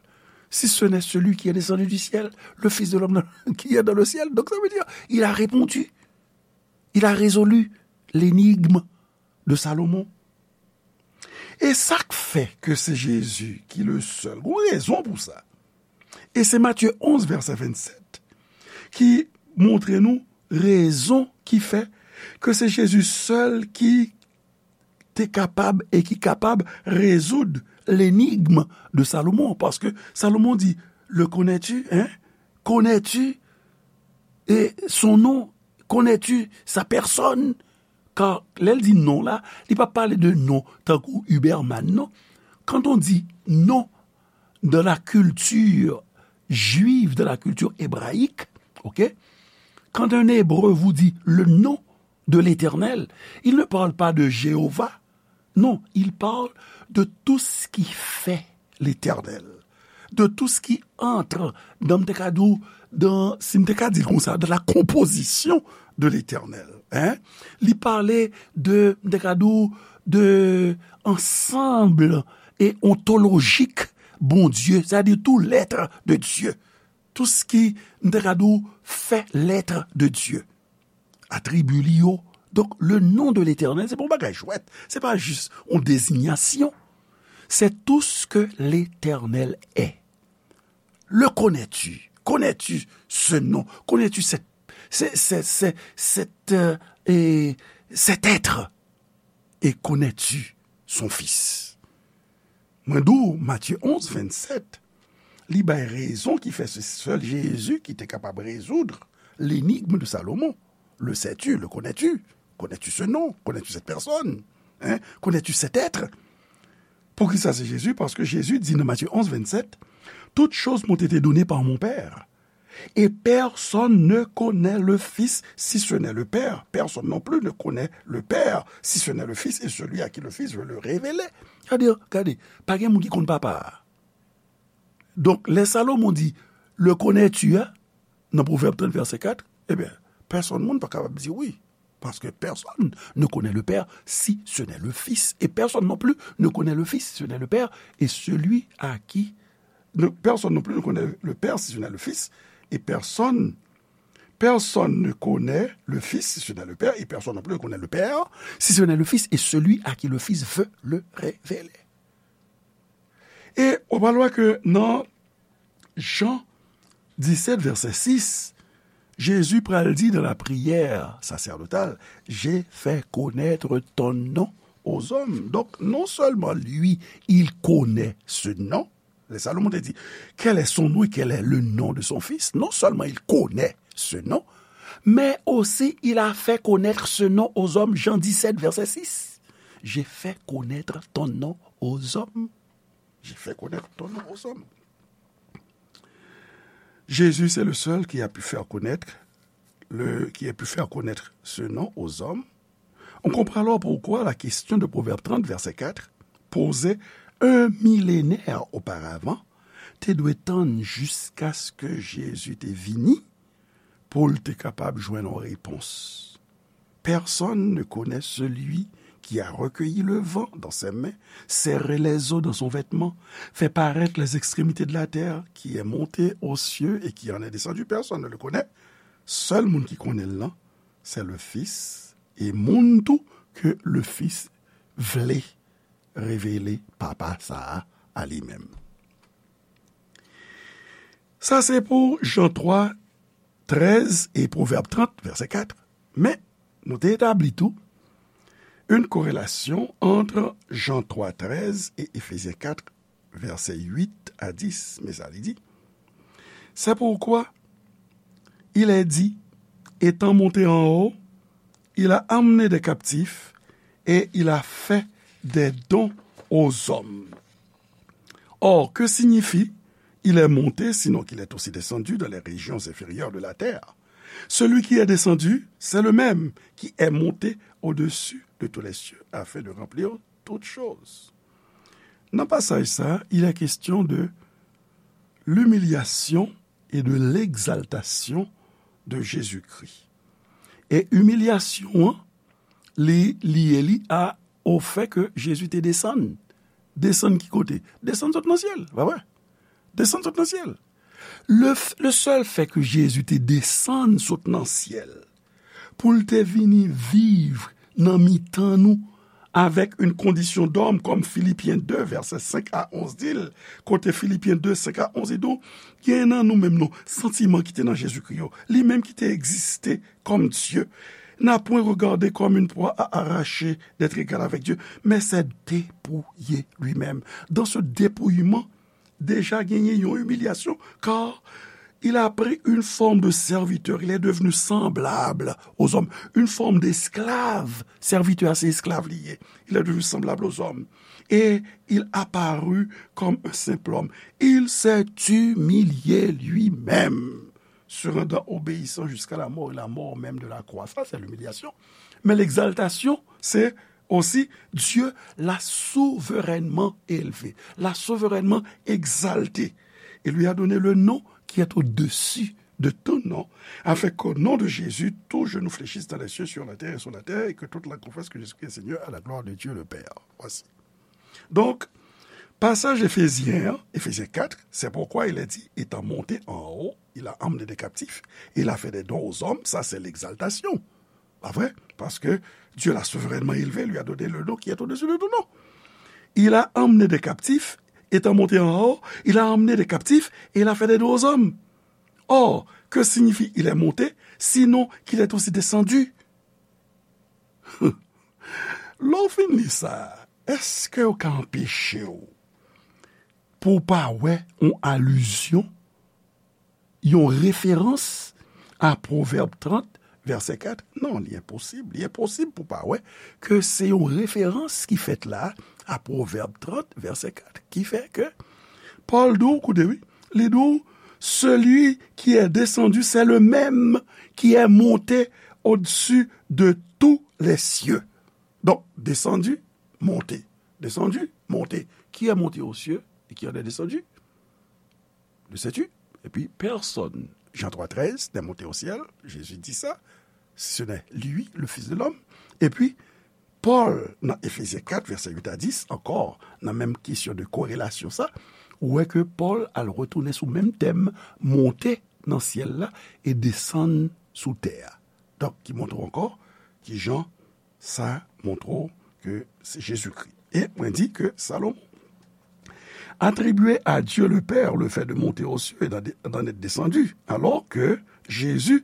si ce n'est celui qui est descendu du ciel, le Fils de l'homme qui est dans le ciel. Donc ça veut dire, il a répondu, il a résolu l'énigme de Salomon. E sa k fè ke se Jezi ki le sèl, gon rezon pou sa. E se Matye onz, vèsè vennsèt, ki montre nou rezon ki fè ke se Jezi sèl ki te kapab e ki kapab rezoud lenigm de Salomon. Paske Salomon di, le connais-tu, hein? Connais-tu, e, son nom? Connais-tu sa personne? Kan lè l di non la, li pa pale de non tankou Uberman, non. Quand on dit non dans la culture juive, dans la culture hébraïque, ok, quand un Hébreu vous dit le nom de l'Éternel, il ne parle pas de Jéhovah, non, il parle de tout ce qui fait l'Éternel, de tout ce qui entre dans, m te ka di w, dans, si m te ka di l konsa, dans la composition de l'Éternel. Hein? Li pale de, m te ka di w, de ansanm e ontolojik Bondye, c'est-à-dire tout l'être de Dieu. Tout ce qui, m te ka di w, fait l'être de Dieu. Atribi li yo. Donk, le nom de l'Éternel, se pa yon bagay jwèt. Se pa jis yon dezinyasyon. C'est tout ce que l'Éternel est. Le connais-tu? Connais-tu ce nom? Connais-tu cette, ce, ce, ce, cette, euh, et cet être? Et connais-tu son Fils? Mwen di w, Matye onz, vennsèt, li bay rezon ki fè se sèl Jezi ki te kapab rezoud l'énigme de Salomon. Le sais-tu? Le connais-tu? Connais-tu ce nom? Connais-tu cette personne? Hein? Connais-tu cet être? Poukisa se Jezi? Paske Jezi di nan Matye onz, vennsèt, toutes choses m'ont été données par mon Père. Et personne ne connaît le Fils si ce n'est le Père. Personne non plus ne connaît le Père si ce n'est le Fils et celui à qui le Fils veut le révéler. Gade, gade, pa gen moun ki konn papa a. Donk, lè Salomon di, le connais-tu, hein, nan Pwovèb trant, vèsè kat, ebyen, pèsonn moun pa kapab di wi. Parce que personne ne connaît le Père si ce n'est le Fils. Et personne non plus ne connaît le Fils si ce n'est le Père. Et celui à qui ne, personne non plus ne connaît le Père si ce n'est le Fils. Et personne, personne ne connaît le Fils si ce n'est le Père. Et personne non plus ne connaît le Père si ce n'est le Fils. Et celui à qui le Fils veut le révéler. E ou pral wè ke nan Jan disèt, vèsè sis, Jezi pral di dans la prière sacerdotale, j'ai fait connaître ton nom aux hommes. Donc, non seulement lui, il connaît ce nom, lè Salomon te di, quel est son nom et quel est le nom de son fils? Non seulement il connaît ce nom, mais aussi il a fait connaître ce nom aux hommes. Jan disèt, vèsè sis. J'ai fait connaître ton nom aux hommes. J'ai fait connaître ton nom aux hommes. Jésus, c'est le seul qui a pu faire connaître le, qui a pu faire connaître ce nom aux hommes. On comprend alors pourquoi la question de Proverbe trente, verset quatre, posée un millénaire auparavant, te dwe tann jiskaske Jezi te vini pou l te kapab jwenn yon repons. Personne ne connaît celui qui a recueilli le vent dans ses mains, serré les eaux dans son vêtement, fait paraître les extrémités de la terre, qui est monté aux cieux et qui en est descendu. Personne ne le connaît. Sèl moun ki konnen l lan, c'est le Fils, e moun tou ke le Fils vle revele Papa sa a a li menm. Sa se pou Jan twa, trèz e Pwovèb trant, vèsè kat. Men, nou te etabli tou une corrélation entre Jean trois treize et Éphésiens quatre, versets huit à dix. Men sa li di, c'est pourquoi il est dit, étant monté en haut, il a amené des captifs et il a fait des dons aux hommes. Or, que signifie il est monté, sinon qu'il est aussi descendu dans les régions inférieures de la terre? Celui qui est descendu, c'est le même qui est monté au-dessus de tous les cieux afin de remplir toutes choses. Nan pasaj sa, il est question de l'humiliation et de l'exaltation de Jésus-Christ. E imilyasyon an, li liye li a, au fait que Jésus te desann. Desann ki kote? Desann sot nan syèl, pa vre? Desann sot nan syèl. Le, le seul fait que Jésus te desann sot nan syèl, pou l te vini viv nan mitan nou, avec une condition d'homme, comme Philippiens deux, verset cinq à onze di l, kote Filipyen de, senk a onz, li di w, gen nan nou menm non, santiman ki te nan Jezikri yo, li menm ki te egziste comme Dieu, n'a point regardé comme une proie à arracher d'être égal avec Dieu, mais s'est dépouillé lui-même. Dans ce dépouillement, deja genyen yon imilyasyon, car il a pris une forme de serviteur, il est devenu semblable aux hommes, une forme d'esclave, serviteur se esklav li ye, il est devenu semblable aux hommes, et il apparut comme un simple homme, il s'est humilié lui-même, se rendant obéissant jusqu'à la mort, et la mort même de la croix. Ça, c'est l'humiliation. Mais l'exaltation, c'est aussi Dieu l'a souverainement élevé, l'a souverainement exalté, et lui a donné le nom qui est au-dessus de ton nom, afin qu'au nom de Jésus, tout genou fléchisse dans les cieux, sur la terre et sous la terre, et que toute langue confesse que Jésus-Christ est Seigneur à la gloire de Dieu le Père. Voici. Donc, passage éphésien, Éphésiens quatre, c'est pourquoi il est dit, étant monté en haut, il a emmené des captifs, il a fait des dons aux hommes, ça c'est l'exaltation. Pa vre? Parce que Dieu l'a souverainement élevé, lui a donné le nom qui est au-dessus de tout nom. Il a emmené des captifs, étant monté en haut, il a emmené des captifs et il a fait des dons aux hommes. Or, que signifie il est monté, sinon qu'il est aussi descendu? Lè w fin li sa, èske w ka anpeche w pou w pa wè yon alizyon, yon referans a Pwovèb trant, vèsè kat? Non, li enposib. Li enposib pou w pa wè ke se yon referans ki fèt la a Pwovèb trant, vèsè kat, ki fè ke Pòl di w, koute wi, li di w, celui qui est descendu, c'est le même qui est monté au-dessus de tous les cieux. Donc, descendu, monté. Descendu, monté. Qui est monté aux cieux et qui en est descendu? Le sais-tu? Et puis, personne, Jean trois treize, n'est monté au ciel, Jésus dit ça, si ce n'est lui, le Fils de l'homme. Et puis, Pòl, nan Efezyen kat, vèsè uit a dis, ankò, nan menm kesyon de korelasyon sa, ou wè ke Pòl al retounen sou menm tèm, monte nan syèl la e desann sou tè a. Donk, ki montre w ankò kijan sa montre w ke se Jezikri. E mwen di ke Salomon attribuait à Dieu le Père le fait de monter aux cieux et d'en, d'en être descendu, alors que Jésus,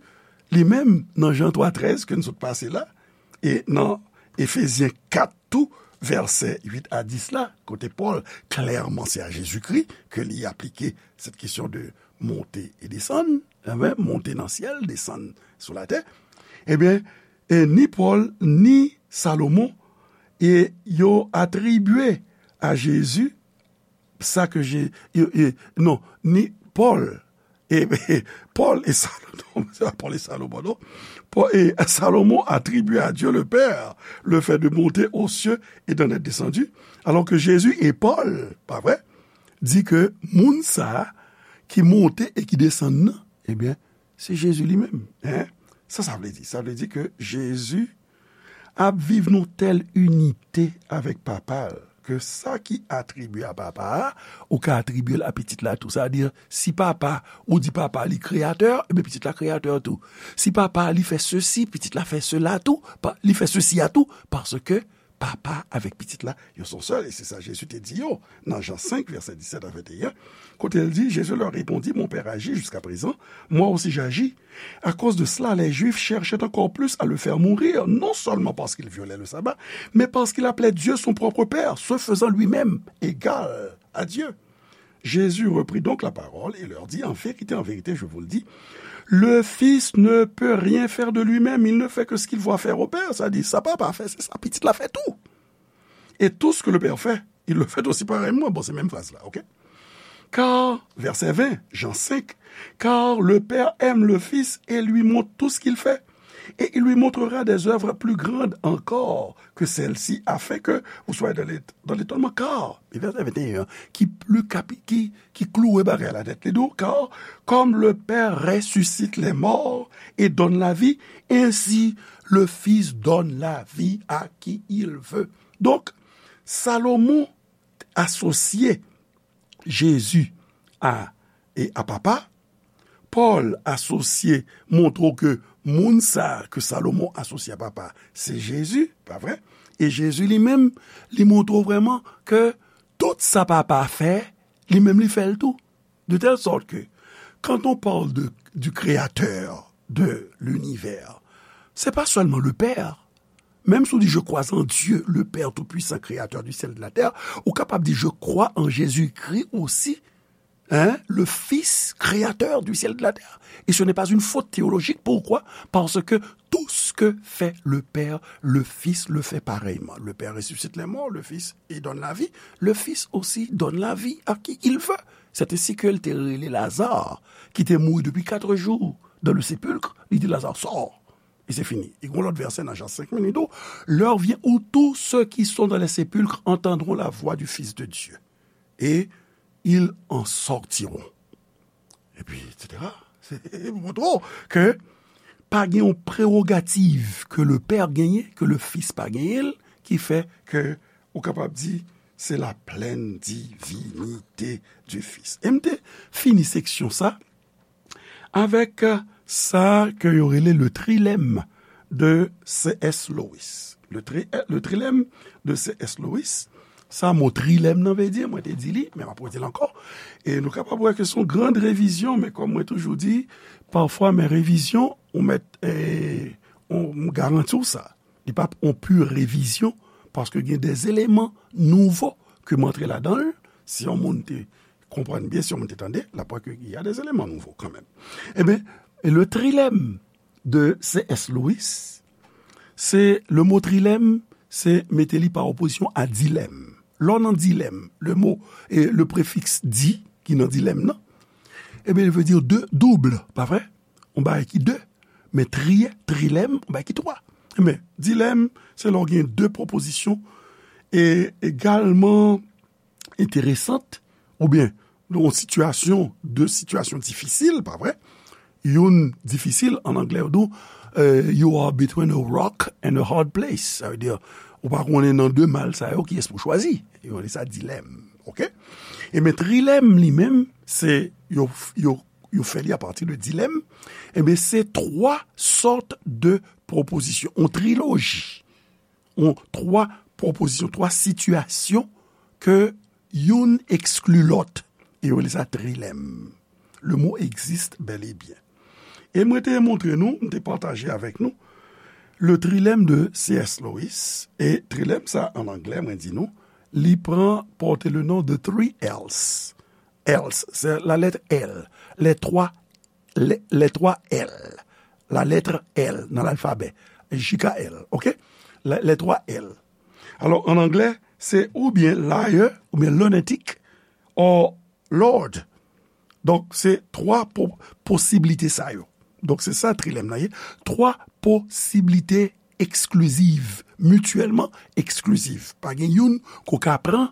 li menm, nan Jan twa trèz ke n sot pase la, e nan Efezyen kat tou, vèsè uit a dis la, kote Pòl, klèman, se a Jezikri ke li aplike cette question de monter et descendre, enben, monte nan syèl, desann sou latè, ebyen, e ni Pòl, ni Salomon, e yo atribye a Jezi sa ke Je-, e, e, non, ni Pòl, e, e, Pòl e Salomon, se pa Pòl e Salomon, non. Pòl, e, Salomon attribue à Dieu le Père le fait de monter aux cieux et d'en être descendu, alors que Jésus et Paul, pa vre, di ke moun sa a ki monte e ki desann nan, ebyen, se Jezi li menm. Hein? Sa, sa vle di? Sa vle di ke Jezi ap viv nan tèl inite avèk Papa l, ke sa ki atribye a Papa a, ou ka atribye l a Pitit la tou. Sa vle di, si Papa, ou di Papa li kreyatè, ebyen Pitit la kreyatè tou. Si Papa li fè sesi, Pitit la fè sela tou, pa, li fè sesi a tou, paske Papa avèk Pitit la, yo se yon sèl, e se sa Jezi te di yo nan Jan senk, vèsè disèt a venteyen, kote l di, Jésus leur répondit, mon Père agit jusqu'à présent, moi aussi j'agis. À cause de cela, les Juifs cherchaient encore plus à le faire mourir, non seulement parce qu'il violait le sabbat, mais parce qu'il appelait Dieu son propre Père, se faisant lui-même égal à Dieu. Jésus reprit donc la parole et leur dit, en vérité, en vérité, je vous le dis, le Fils ne peut rien faire de lui-même, il ne fait que ce qu'il voit faire au Père. Sa di, sa Papa fè, se sa Pitit la fè tou. Et tout ce que le Père fait, il le fait aussi pareillement. Bon, se menm fraz la, ok? Car, verset vingt, Jean cinq, car le Père aime le Fils et lui montre tout ce qu'il fait. Et il lui montrera des œuvres plus grandes encore que celles-ci, afin que vous soyez dans l'ét-, dans l'étonnement. Car, e vèsè venteyen an, ki pli kapi-, ki, ki klouwe bagay la nèt, li di w, car comme le Père ressuscite les morts et donne la vie, ainsi le Fils donne la vie à qui il veut. Donk, Salomon asosye Jezi a, e a Papa. Pòl asosye, montre w ke moun sa a ke Salomon asosye a Papa, se Jezi, pa vre? E Jezi li menm, li montre w vrèman ke tout sa Papa a fè, li menm li fè l tou. De telle sorte que, quand on parle de, du Créateur de l'univers, c'est pas seulement le Père. Même si on dit, je crois en Dieu, le Père Tout-Puissant, Créateur du ciel et de la terre, ou kapab di, je crois en Jésus-Christ aussi, hein, le Fils, Créateur du ciel et de la terre. Et ce n'est pas une faute théologique. Pourquoi? Parce que tout ce que fait le Père, le Fils le fait pareillement. Le Père ressuscite les morts, le Fils, il donne la vie, le Fils aussi donne la vie à qui il veut. C'est ainsi ke l te rele Lazare, ki te mouri depuis quatre jours dans le sépulcre, li di, Lazare, sort. E se fini. E gon lòt vèsè nan Jan senk menm, li di, l'heure vient où tous ceux qui sont dans les sépulcres entendront la voix du Fils de Dieu, et ils en sortiront. Et puis, et cetera. Montre w ke pa gen yon prewogativ ke le Père genyen, ke le Fils pa genyen l, ki fè ke ou kapab di c'est la pleine divinité du Fils. E m te fini seksyon sa avèk sa ke yo rele le trilemme de C S Lewis. Le, tri, le trilemme de C S Lewis, sa mo trilemme nan vle di, mwen te di li, men m ap redi l ankò. E nou kapab wè ke se yon grand revizyon, men kòm mwen toujou di, pafwa, men revizyon, ou mèt, eh, ou, m garanti w sa. Li p ap yon pur revizyon, paske gen des éléments nouveaux ke m antre ladan l. Si yon moun te konprann byen, si yon moun te tande, l ap wè ke y a des éléments nouveaux kanmenm. Ebyen, le trilemme de C S Lewis, se, le mo trilemme, se mete li pa opozisyon a dilemme. Lè w nan dilemme, le mo, e, le prefiks di, ki nan dilemme nan, ebyen, li vle di de, double, pa vre? Yon bagay ki de, men tri, trilemme, yon bagay ki twa. Men, dilemme, se lè w gen de pwopozisyon, e egalman enteresant, oubyen yon sitiyasyon, de sitiyasyon difisil, pa vre? Youn difisil, an anglè, yo di w, eh, you are between a rock and a hard place. Sa vle di, ou pa konnen nan de mal sa yo, kiyès pou chwazi. Yo rele sa dilemme, oke? Ebyen, trilemme li menm, se, yo, yo, yo fè li apati de dilemme. Ebyen, se twa sòt de pwopozisyon, yon triloji. Yon twa pwopozisyon, twa sitiyasyon ke youn ekskli lòt. E yo rele sa trilemme. Le mot existe bel et bien. E mwen te montre nou, m te pataje avèk nou, le trilemme de C S Lewis. E trilemme sa, an anglè, mwen di nou, li pran, porte le nom de three L's. L's, c'est la lettre L. Les trois, les, les trois L. La lettre L nan lalfabè. J K L, oke? Les, les trois L. Alò, an anglè, se oubyen liar, oubyen lunatic, or Lord. Donk, se twa po-, posiblite sa yo. Donk, se sa trilemme nan ye. Twa posiblite eksklizif, mityèlman eksklizif. Pa gen youn ke w ka pran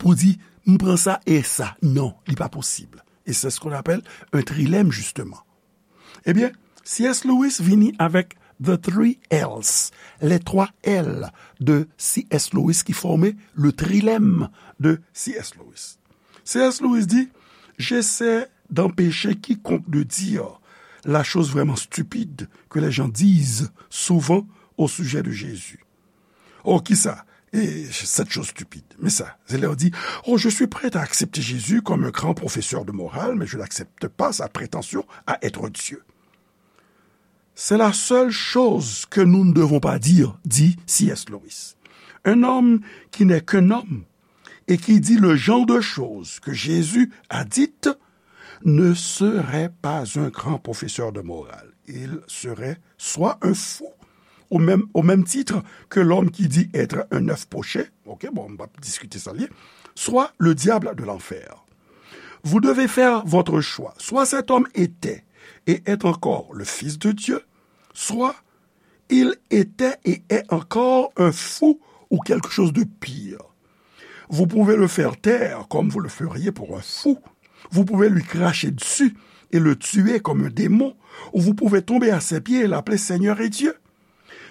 pou di, m pran sa e sa. Non, li pa posib. Et c'est ce qu'on appelle un trilemme, justement. Ebyen, C S Lewis vini avèk The Three L's, les trois L de C S Lewis ki fòme le trilemme de C S Lewis. C S Lewis di, j'essaie d'empêcher quiconque de dire la chose vraiment stupide que les gens disent souvent au sujet de Jésus. Oh, kisa? Et cette chose stupide. Men sa, se lè yo di, oh, je suis prêt à accepter Jésus comme un grand professeur de morale, mais je n'accepte pas sa prétention à être Dieu. C'est la seule chose que nous ne devons pas dire, dit C S Lewis. Un homme qui n'est qu'un homme et qui dit le genre de choses que Jésus a dites ne serait pas un grand professeur de morale. Il serait soit un fou, au même, au même titre que l'homme qui dit être un œuf poché, ok, bon, on va discuter ça, soit le diable de l'enfer. Vous devez faire votre choix. Soit cet homme était et est encore le Fils de Dieu, soit il était et est encore un fou ou quelque chose de pire. Vous pouvez le faire taire comme vous le feriez pour un fou. Vous pouvez lui cracher dessus et le tuer comme un démon, ou vous pouvez tomber à ses pieds et l'appeler Seigneur et Dieu.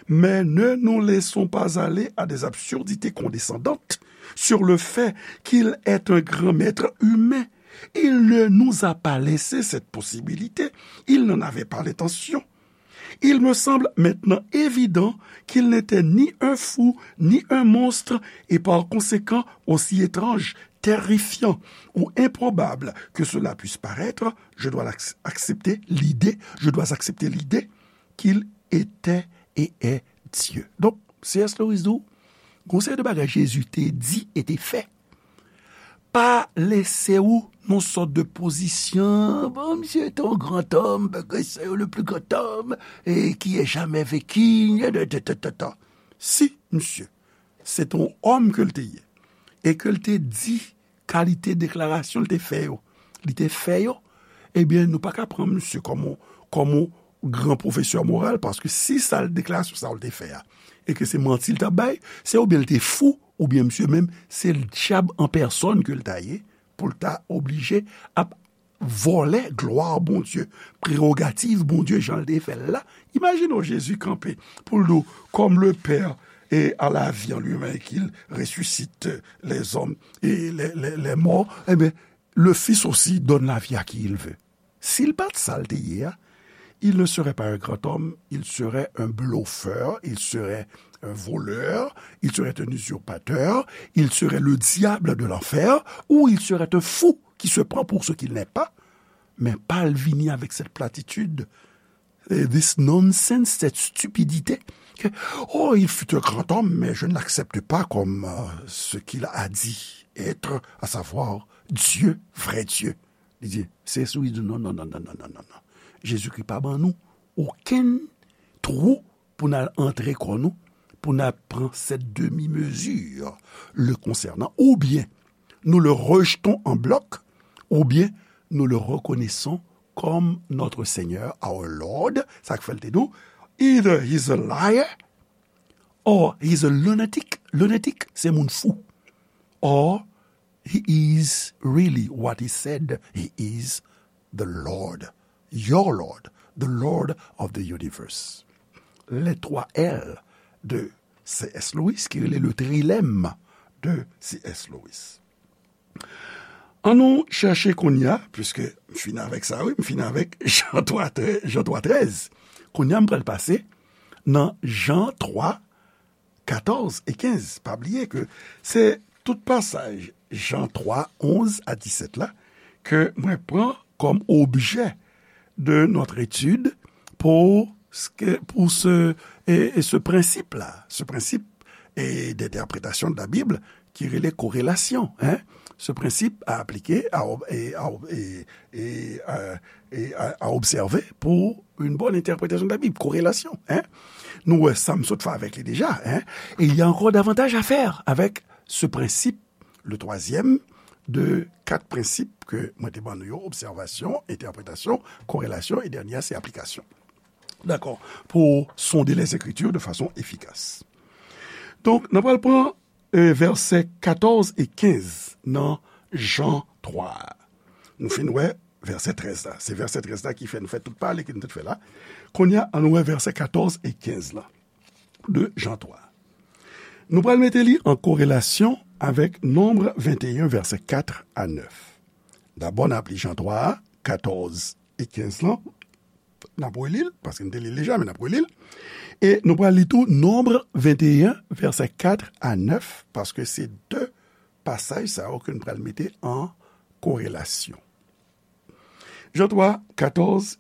Mais ne nous laissons pas aller à des absurdités condescendantes sur le fait qu'il est un grand maître humain. Il ne nous a pas laissé cette possibilité. Il n'en avait pas l'intention. Il me semble maintenant évident qu'il n'était ni un fou, ni un monstre, et par conséquent aussi étrange, terrifiant ou improbable que cela puisse paraître, je dois l'acc-, accepter l'idée, je dois accepter l'idée qu'il était et est Dieu. Donk, C S Lewis di w, gon seri de bagay Jezi te di e te fè pa lese w nan sòt de pozisyon, bon, misye te yon gran òm, bagay sa yo, le plus grand homme, e ki ait jamais vécu, ta, ta, ta, ta, ta. Si, misye, se te yon òm ke l te ye, e ke l te di kalite deklarasyon l te fè yo, li te fè yo, ebyen, nou pa ka pran misye kòm yon, kòm yon gran pwofesè moral, paske si sa l, deklarasyon sa yo l te fè a, e ke se manti l t ap bay, se oubyen l te fou, oubyen misye menm, se dyab an pèsòn ke l ta ye, pou l ta oblije ap vòlè glwa Bondye, prerogativ Bondye jan l te fè l la. Imajine w Jezi kanpe pou l di w, comme le Père a la vie en lui-même et qu'il ressuscite les hommes et les, les, les morts, eh bien, le Fils aussi donne la vie à qui il veut. Si l pa t sa l te ye a, il ne serait pas un grand homme, il serait un bluffeur, il serait un voleur, il serait un usurpateur, il serait le diable de l'enfer, ou il serait un fou qui se prend pour ce qu'il n'est pas. Men pa l vini avèk cette platitude, eh, this nonsense, cette stupidité, que, oh, il fut un grand homme, mais je ne l'accepte pas comme euh, ce qu'il a dit être, à savoir Dieu, vrai Dieu. Li di, se sou li di, non, non, non, non, non, non, non, non. Jezikri pa ban nou okenn twou pou n al antre kò nou, pou n al pran cette demi-mesure le concernant. Oubyen nou le rejetons en bloc, oubyen nous le reconnaissons comme notre Seigneur, our Lord, sa k fè l te di w, either he's a liar, or he's a lunatic. Lunatic, se moun fou. Or he is really what he said he is, the Lord, your Lord, the Lord of the universe. Les trois L de C S Lewis, ki rele le trilemme de C S Lewis. An nou chèche kounye a, puiske m fin avèk sa, wi, m fin avèk Jan twa, Jan twa trèz. Kounye a, m pral pase nan Jan twa, katòz e kenz. Pa bliye ke se tout pasaj Jan twa, onz a disèt la ke mwen pran kòm objè de notre étude pour ce que, pour ce, et, et ce principe-là, ce principe et d'interprétation de la Bible qui relève corrélation, hein, ce principe à appliquer, à, et, à, et, et, euh, et à, à observer pour une bonne interprétation de la Bible, corrélation, hein. Nou wè sa m sot fè avèk li deja, hein, et il y a encore davantage à faire avec ce principe, le troisième de quatre principes que mwen te ban nou yo, observation, interprétation, corrélation, et dènyè a se application. Dakò? Pour sonder les Écritures de façon efficace. Donk, n ap pral pran, euh, vèsè katòz e kenz nan Jan twa a. Nou fin wè vèsè trèz la. Se vèsè trèz la ki fè nou fè tout pale ke nou te fè la. Kounye a, an nou wè vèsè katòz e kenz la de Jan twa. Nou pral mete li an korelasyon avèk Nonb venteyen, vèsè kat a nèf. Dabò, n ap li Jan twa a, katòz e kenz lan. N ap reli l, paske n te li l deja, men n ap reli l. E nou pral li tou Nonb venteyen, vèsè kat a nèf, paske se de pasaj sa yo ke n pral mete an korelasyon. Jan twa, katòz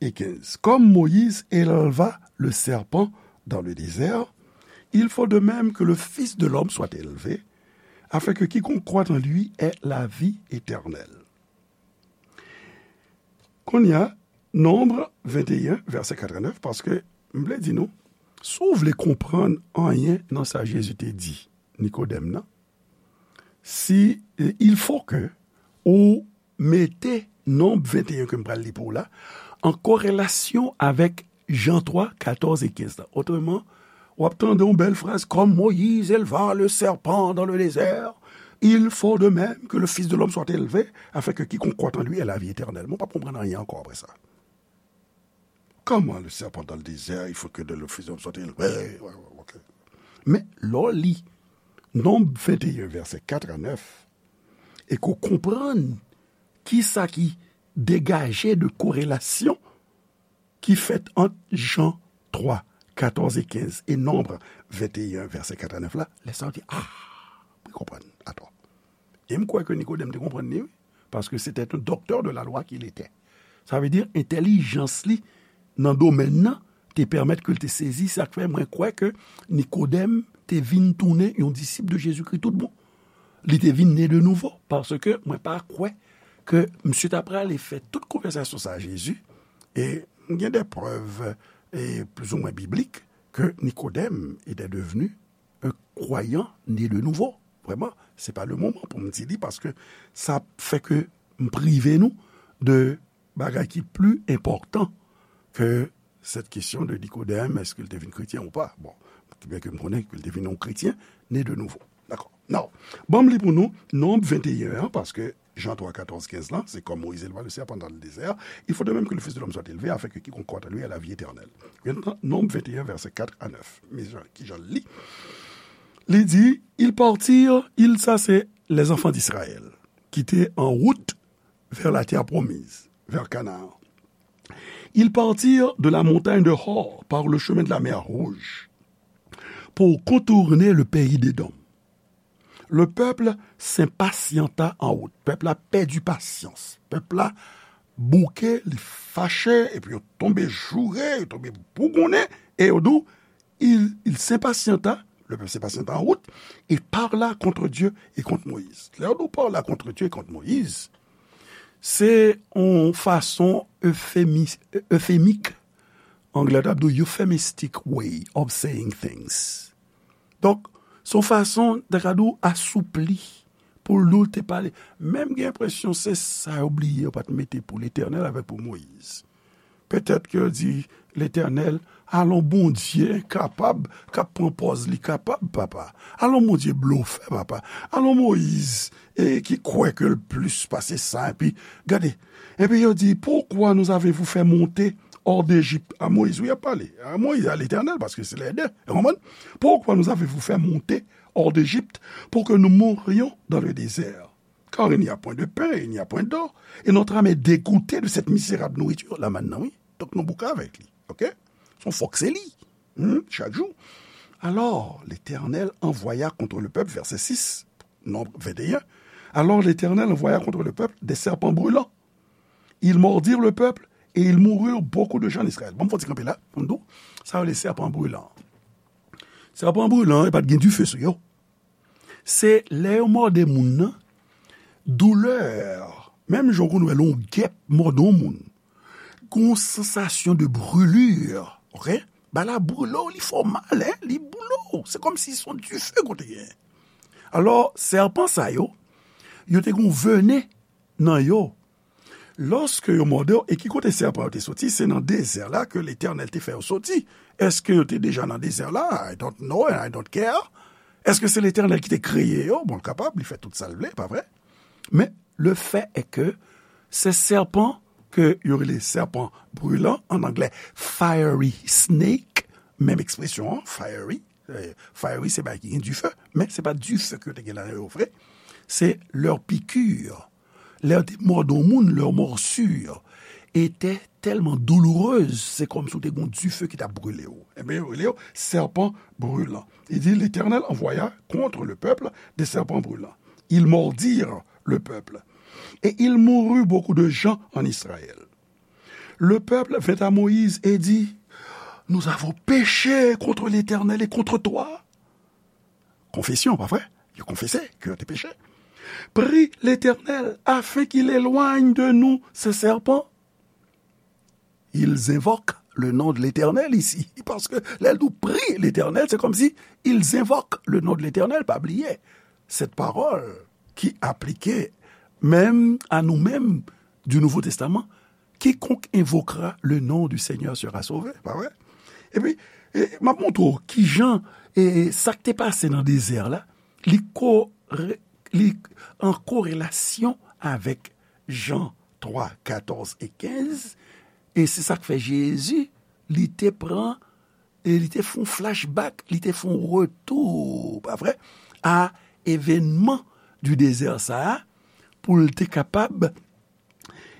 e kenz. Comme Moïse éleva le serpent dans le désert, il faut de même que le Fils de l'homme soit élevé, afin que quiconque croit en lui ait la vie éternelle. Kounye a, Nonb venteyen, vèsè kat a nèf, paske m vle di nou, si w vle konprann anyen nan sa Jezi te di Nikodèm nan, si, il faut que ou mete Nonb venteyen ke m pral li pou w la an korelasyon avèk Jan twa, katòz e kenz la. Otreman, w ap tande yon bèl fraz, comme Moïse éleva le serpent dans le désert, il faut de même que le Fils de l'homme soit élevé, afin que quiconque croit en lui ait la vie éternelle. Mwen p ap konprann anyen ankò apre sa. Comment le serpent dans le désert, il faut que le Fils de l'homme soit élevé. Ouais, ouais, ok. Men lè w li Nonb venteyen, vèsè kat a nèf, e ke w konprann kisa ki degaje de korelasyon ki fèt ant Jan twa, katòz e kenz e Nonb venteyen, vèsè kat a nèf la, lè sa w di, ah, mwen konprann, atò. E m kwè ke Nikodèm te konprann li, wi, paske c'était un docteur de la loi qu'il était. Sa vle di, entèlijans li nan domèn nan te pèmèt ke l te sezi, sa k fè mwen kwè ke Nikodèm te vin tounen yon disip de Jezikri tout bon. Li te vin ne de nouvo, paske mwen pa kwè ke misye ta prale fè tout konvèsasyon sa a Jezi, e m gen de prèv, e plizoumwen biblik, ke Nikodèm était devenu un croyant né de nouveau. Vrèman, se pa le moman pou m di li, paske sa ap fè ke m prive nou de bagay ki pli enpòtan ke cette question de Nicodème, èske l te vin kretyen ou pa? Bon, byen ke m konnen ke l te vin yon kretyen, né de nouveau. Dakò. Now, ban m li pou nou, Nonb venteyen an, paske Jean trois, quatorze, quinze là, c'est comme Moïse éleva le serpent dans le désert, il faut de même que le Fils de l'homme soit élevé, afin que quiconque croit en lui ait la vie éternelle. Maintenant, Nonb vingt et un, versets quatre à neuf. Men jan, ki jan l li? Li di, ils partirent, ils, ça c'est les enfants d'Israël, qui étaient en route vers la terre promise, vers Canaan. Ils partirent de la montagne de Hor par le chemin de la mer Rouge pour contourner le pays d'Édom. Le peuple s'impatienta en route. Pèp la pèdi pasyans. Pèp la bouke, li fache, epi yo tonbe joure, yo tonbe bougonnen, e yo di w, il, il s'impatienta, le peuple s'impatienta en route, et parla contre Dieu et contre Moïse. Lè yo di w parla contre Dieu et contre Moïse, se yon fason efemi-, efemik, anglè t ap di w euphemistic way of saying things. Donk, se yon fason, ta ka di w, asoupli, pou l di w te pale. Men m gen enpresyon se sa yo bliye, yo pa t mete pou Letènèl avèk pou Moyiz. Petèt ke yo di Letènèl, alon Bondye kapab, k ap pran pòz li kapab, papa. Alon Bondye blofè, papa. Alon Moyiz, e ki kwè ke l plis pase sa, epi, gade, epi yo di, pourquoi nous avez-vous fait monter hors d'Égypte? A Moyiz, wi, y ap pale. A Moyiz, a Letènèl, paske se lè de. Ou konprann? Pourquoi nous avez-vous fait monter hors d'Égypte pour que nous mourions dans le désert? Car il n'y a point de pain, il n'y a point d'eau, et notre âme est dégoûtée de cette misérable nourriture. La manne nan, wi. Donk, nou bouke avèk li. Oke? Se yon fòk se li. Hmm, chak jou. Alors, l'Éternel envoya contre le peuple, verset six, Nombre vingt et un. Alors l'Éternel envoya contre le peuple des serpents brûlants. Ils mordirent le peuple et il mourut beaucoup de gens en Israël. Bon, m fè ti kanpe la, pou m di w, sa yo rele sèpan brilan. Sèpan brilan, e pa t gen dife sou yo. Se lè yo mòde moun nan, doulè, menm jan w konn wè lè yon gèp mòde yon moun, gon sansasyon de brûlure, oke? Bagay la brûle w, li fè w mal, en, li brûle w. Se kòmsi se yon dife kote gen. Alò, sèpan sa yo, yo te gon venen nan yo. Lòske yo mòde w, e ki kote sèpan yo te soti? Se nan dezè la ke Letènèl te fè yo soti. Èske yo te deja nan dezè la? I don't know and I don't care. Èske se Letènèl ki te kreye yo? Bon, l kapab, li fè tout sa l vle, pa vre? Men, le fait est que se sèpan ke yo rele sèpan brilan, an anglè, fiery snake, menm ekspresyon an, fiery, eh, fiery, se bagay ki gen dife, men se pa dife ke yo te gen la yo vre. Se leur piqûre. Lè yo te mòde yon moun, leur morsure était tellement douloureuse, se kòmsi w te gon dife ki t ap brile w. Ebyen, yo rele yo sèpan brilan. Il dit, l'Éternel envoya contre le peuple des serpents brûlants. Ils mordirent le peuple. Et il mourut beaucoup de gens en Israël. Le peuple vint à Moïse et dit, nous avons péché contre l'Éternel et contre toi. Konfesyon, pa vre? Yo konfese ke yo te peche. Prie l'Éternel afin qu'il éloigne de nous ce serpent. Ils invoquent le nom de l'Éternel ici. Paske lè l di w prie l'Éternel, se kòmsi ils invoquent le nom de l'Éternel. Pa bliye, cette parole qui appliquait même à nous-mêmes du Nouveau Testament, quiconque invoquera le nom du Seigneur sera sauvé. Pa vre? Epi, e, m ap montre w kijan, e, sa k te pase nan dezè la, li ko-, re-, li an korelasyon avèk Jan twa, katòz e kenz, e se sa k fè Jezi, li te pran, e li te fè yon flashback, li te fè yon retou, pa vre, a evènman di dezè sa a, pou l te kapab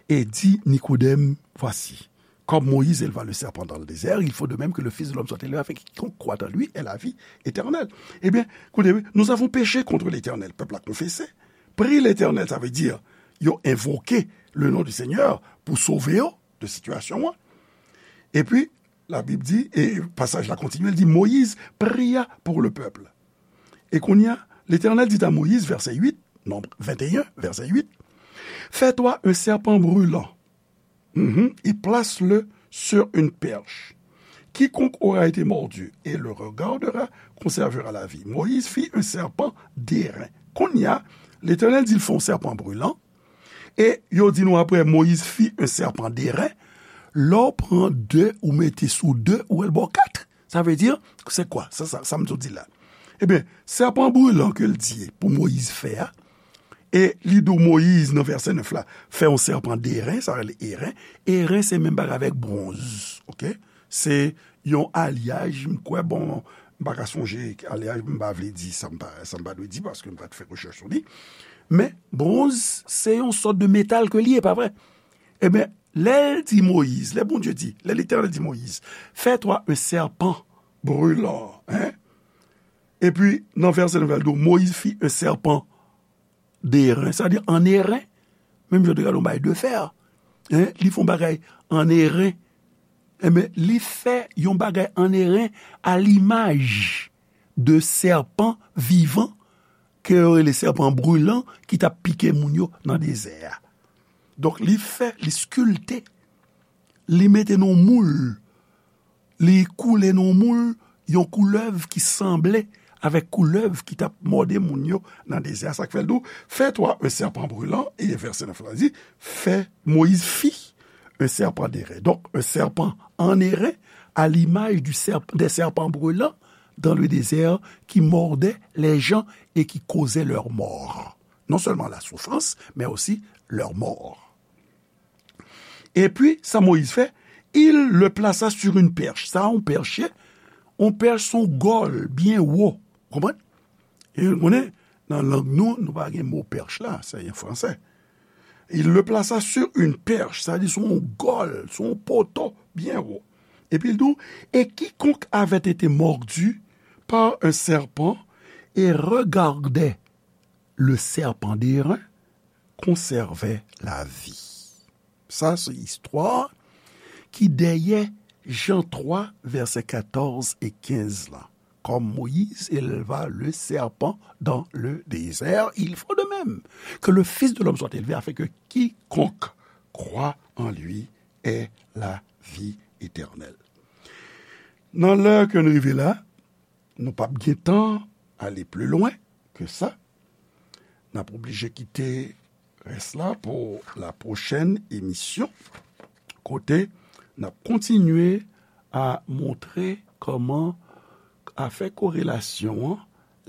e di Nikodèm, voici, comme Moïse éleva le serpent dans le désert, il faut de même que le Fils de l'homme soit élevé afin que quiconque croit en lui ait la vie éternelle. Ebyen, koute, wi, nous avons péché contre l'Éternel, pèp la konfese. Prie l'Éternel, sa vle di, yo envoke le nom du Seigneur pou sove yo de sitiyasyon an. Epi, la Bible dit, et passage la continue, il dit, Moïse pria pour le peuple. Et kounye a, l'Éternel dit à Moïse, verset huit, Nombre vingt et un, verset huit, fais-toi un serpent brûlant, mhm, et place-le sur une perche. Quiconque aura été mordu et le regardera conservera la vie. Moïse fit un serpent d'airain. Kounye a, l'Éternel di l fè yon sèpan brilan, e yo di nou apre, Moïse fit un serpent d'airain. Lè w pran de, ou mete sou de, ou wè l ba w kat. Sa vle di, se kwa? Sa, sa, sa m sot di la. Ebyen, sèpan brilan ke l di pou Moyiz fè a, E li di w Moyiz nan vèsè nèf la, fè yon sèpan de ren, sa rele eren. Eren se menm bagay avèk bwonz, oke? Se yon alyaj, m kwè, bon, m pa ka sonje alyaj, m pa vle di sa m pa, sa m pa dwe di, paske m pa t fè rechèch sou li. Men, bwonz, se yon sòt de metal ke li ye, pa vre? Ebyen, lè l di Moyiz, lè Bondye di, lè Letènèl di Moyiz, fais-toi un serpent brûlant, hein? Epi, nan vèsè nèf la, l di w, Moïse fit un serpent d'airain, sa vle di an eren, menm jan w te gade yon bagay de fè, hein, li fè yon bagay an eren, enben, li fè yon bagay an eren à l'image de serpent vivant, ke yo rele sèpan brilan, ki t ap pike moun yo nan dezè a. Donk, li fè, li skilte, li mete nan yon moul, li koule nan yon moul, yon koulèv ki sanble avèk koulèv ki t ap mòde moun yo nan dezè a. Sa k fè l di w, fais-toi un serpent brûlant, e vèsè nèf la di, fè, Moïse fit un serpent d'airain. Donc, un serpent en airain, à l'image du serp-, des serpents brûlants dans le désert qui mordaient les gens et qui causaient leur mort. Non seulement la souffrance, mais aussi leur mort. Epi, sa Moyiz fè, il le plaça sur une perche. Sa yon pèch ye, yon pèch se yon gòl byen wo. Konprann? E nou konnen, nan lang nou, nou pa gen mo pèch la, se an fransè. Il le plaça sur une perche, sa vle di se yon gòl, se yon poto byen wo. Epi l di w, et quiconque avait été mordu par un serpent et regardait le serpent d'airain conservait la vie. Sa se istwa ki dèyè Jan twa, vèsè katòz e kenz la. Comme Moïse éleva le serpent dans le désert, il faut de même que le Fils de l'homme soit élevé, afin que quiconque croit en lui ait la vie éternelle. Nan lè ke n rive la, nou p ap gen tan ale pli lwen ke sa. N ap oblije kite rès la pou la pwochèn emisyon, kote n ap kontinye a montre kòman afè korelasyon an,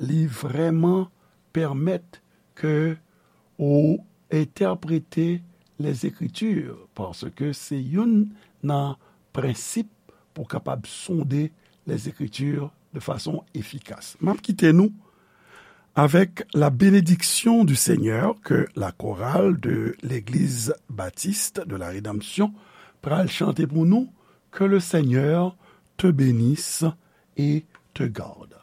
li vrèman pèmèt ke ou entèprete Lèzekritir, paske se youn nan prensip pou w kapab sonde Lèzekritir de fason efikas. M ap kite nou avec la bénédiction du Seigneur que la chorale de l'Église baptiste de la Rédemption pral chante pou nou, que le Seigneur te bénisse et te garde.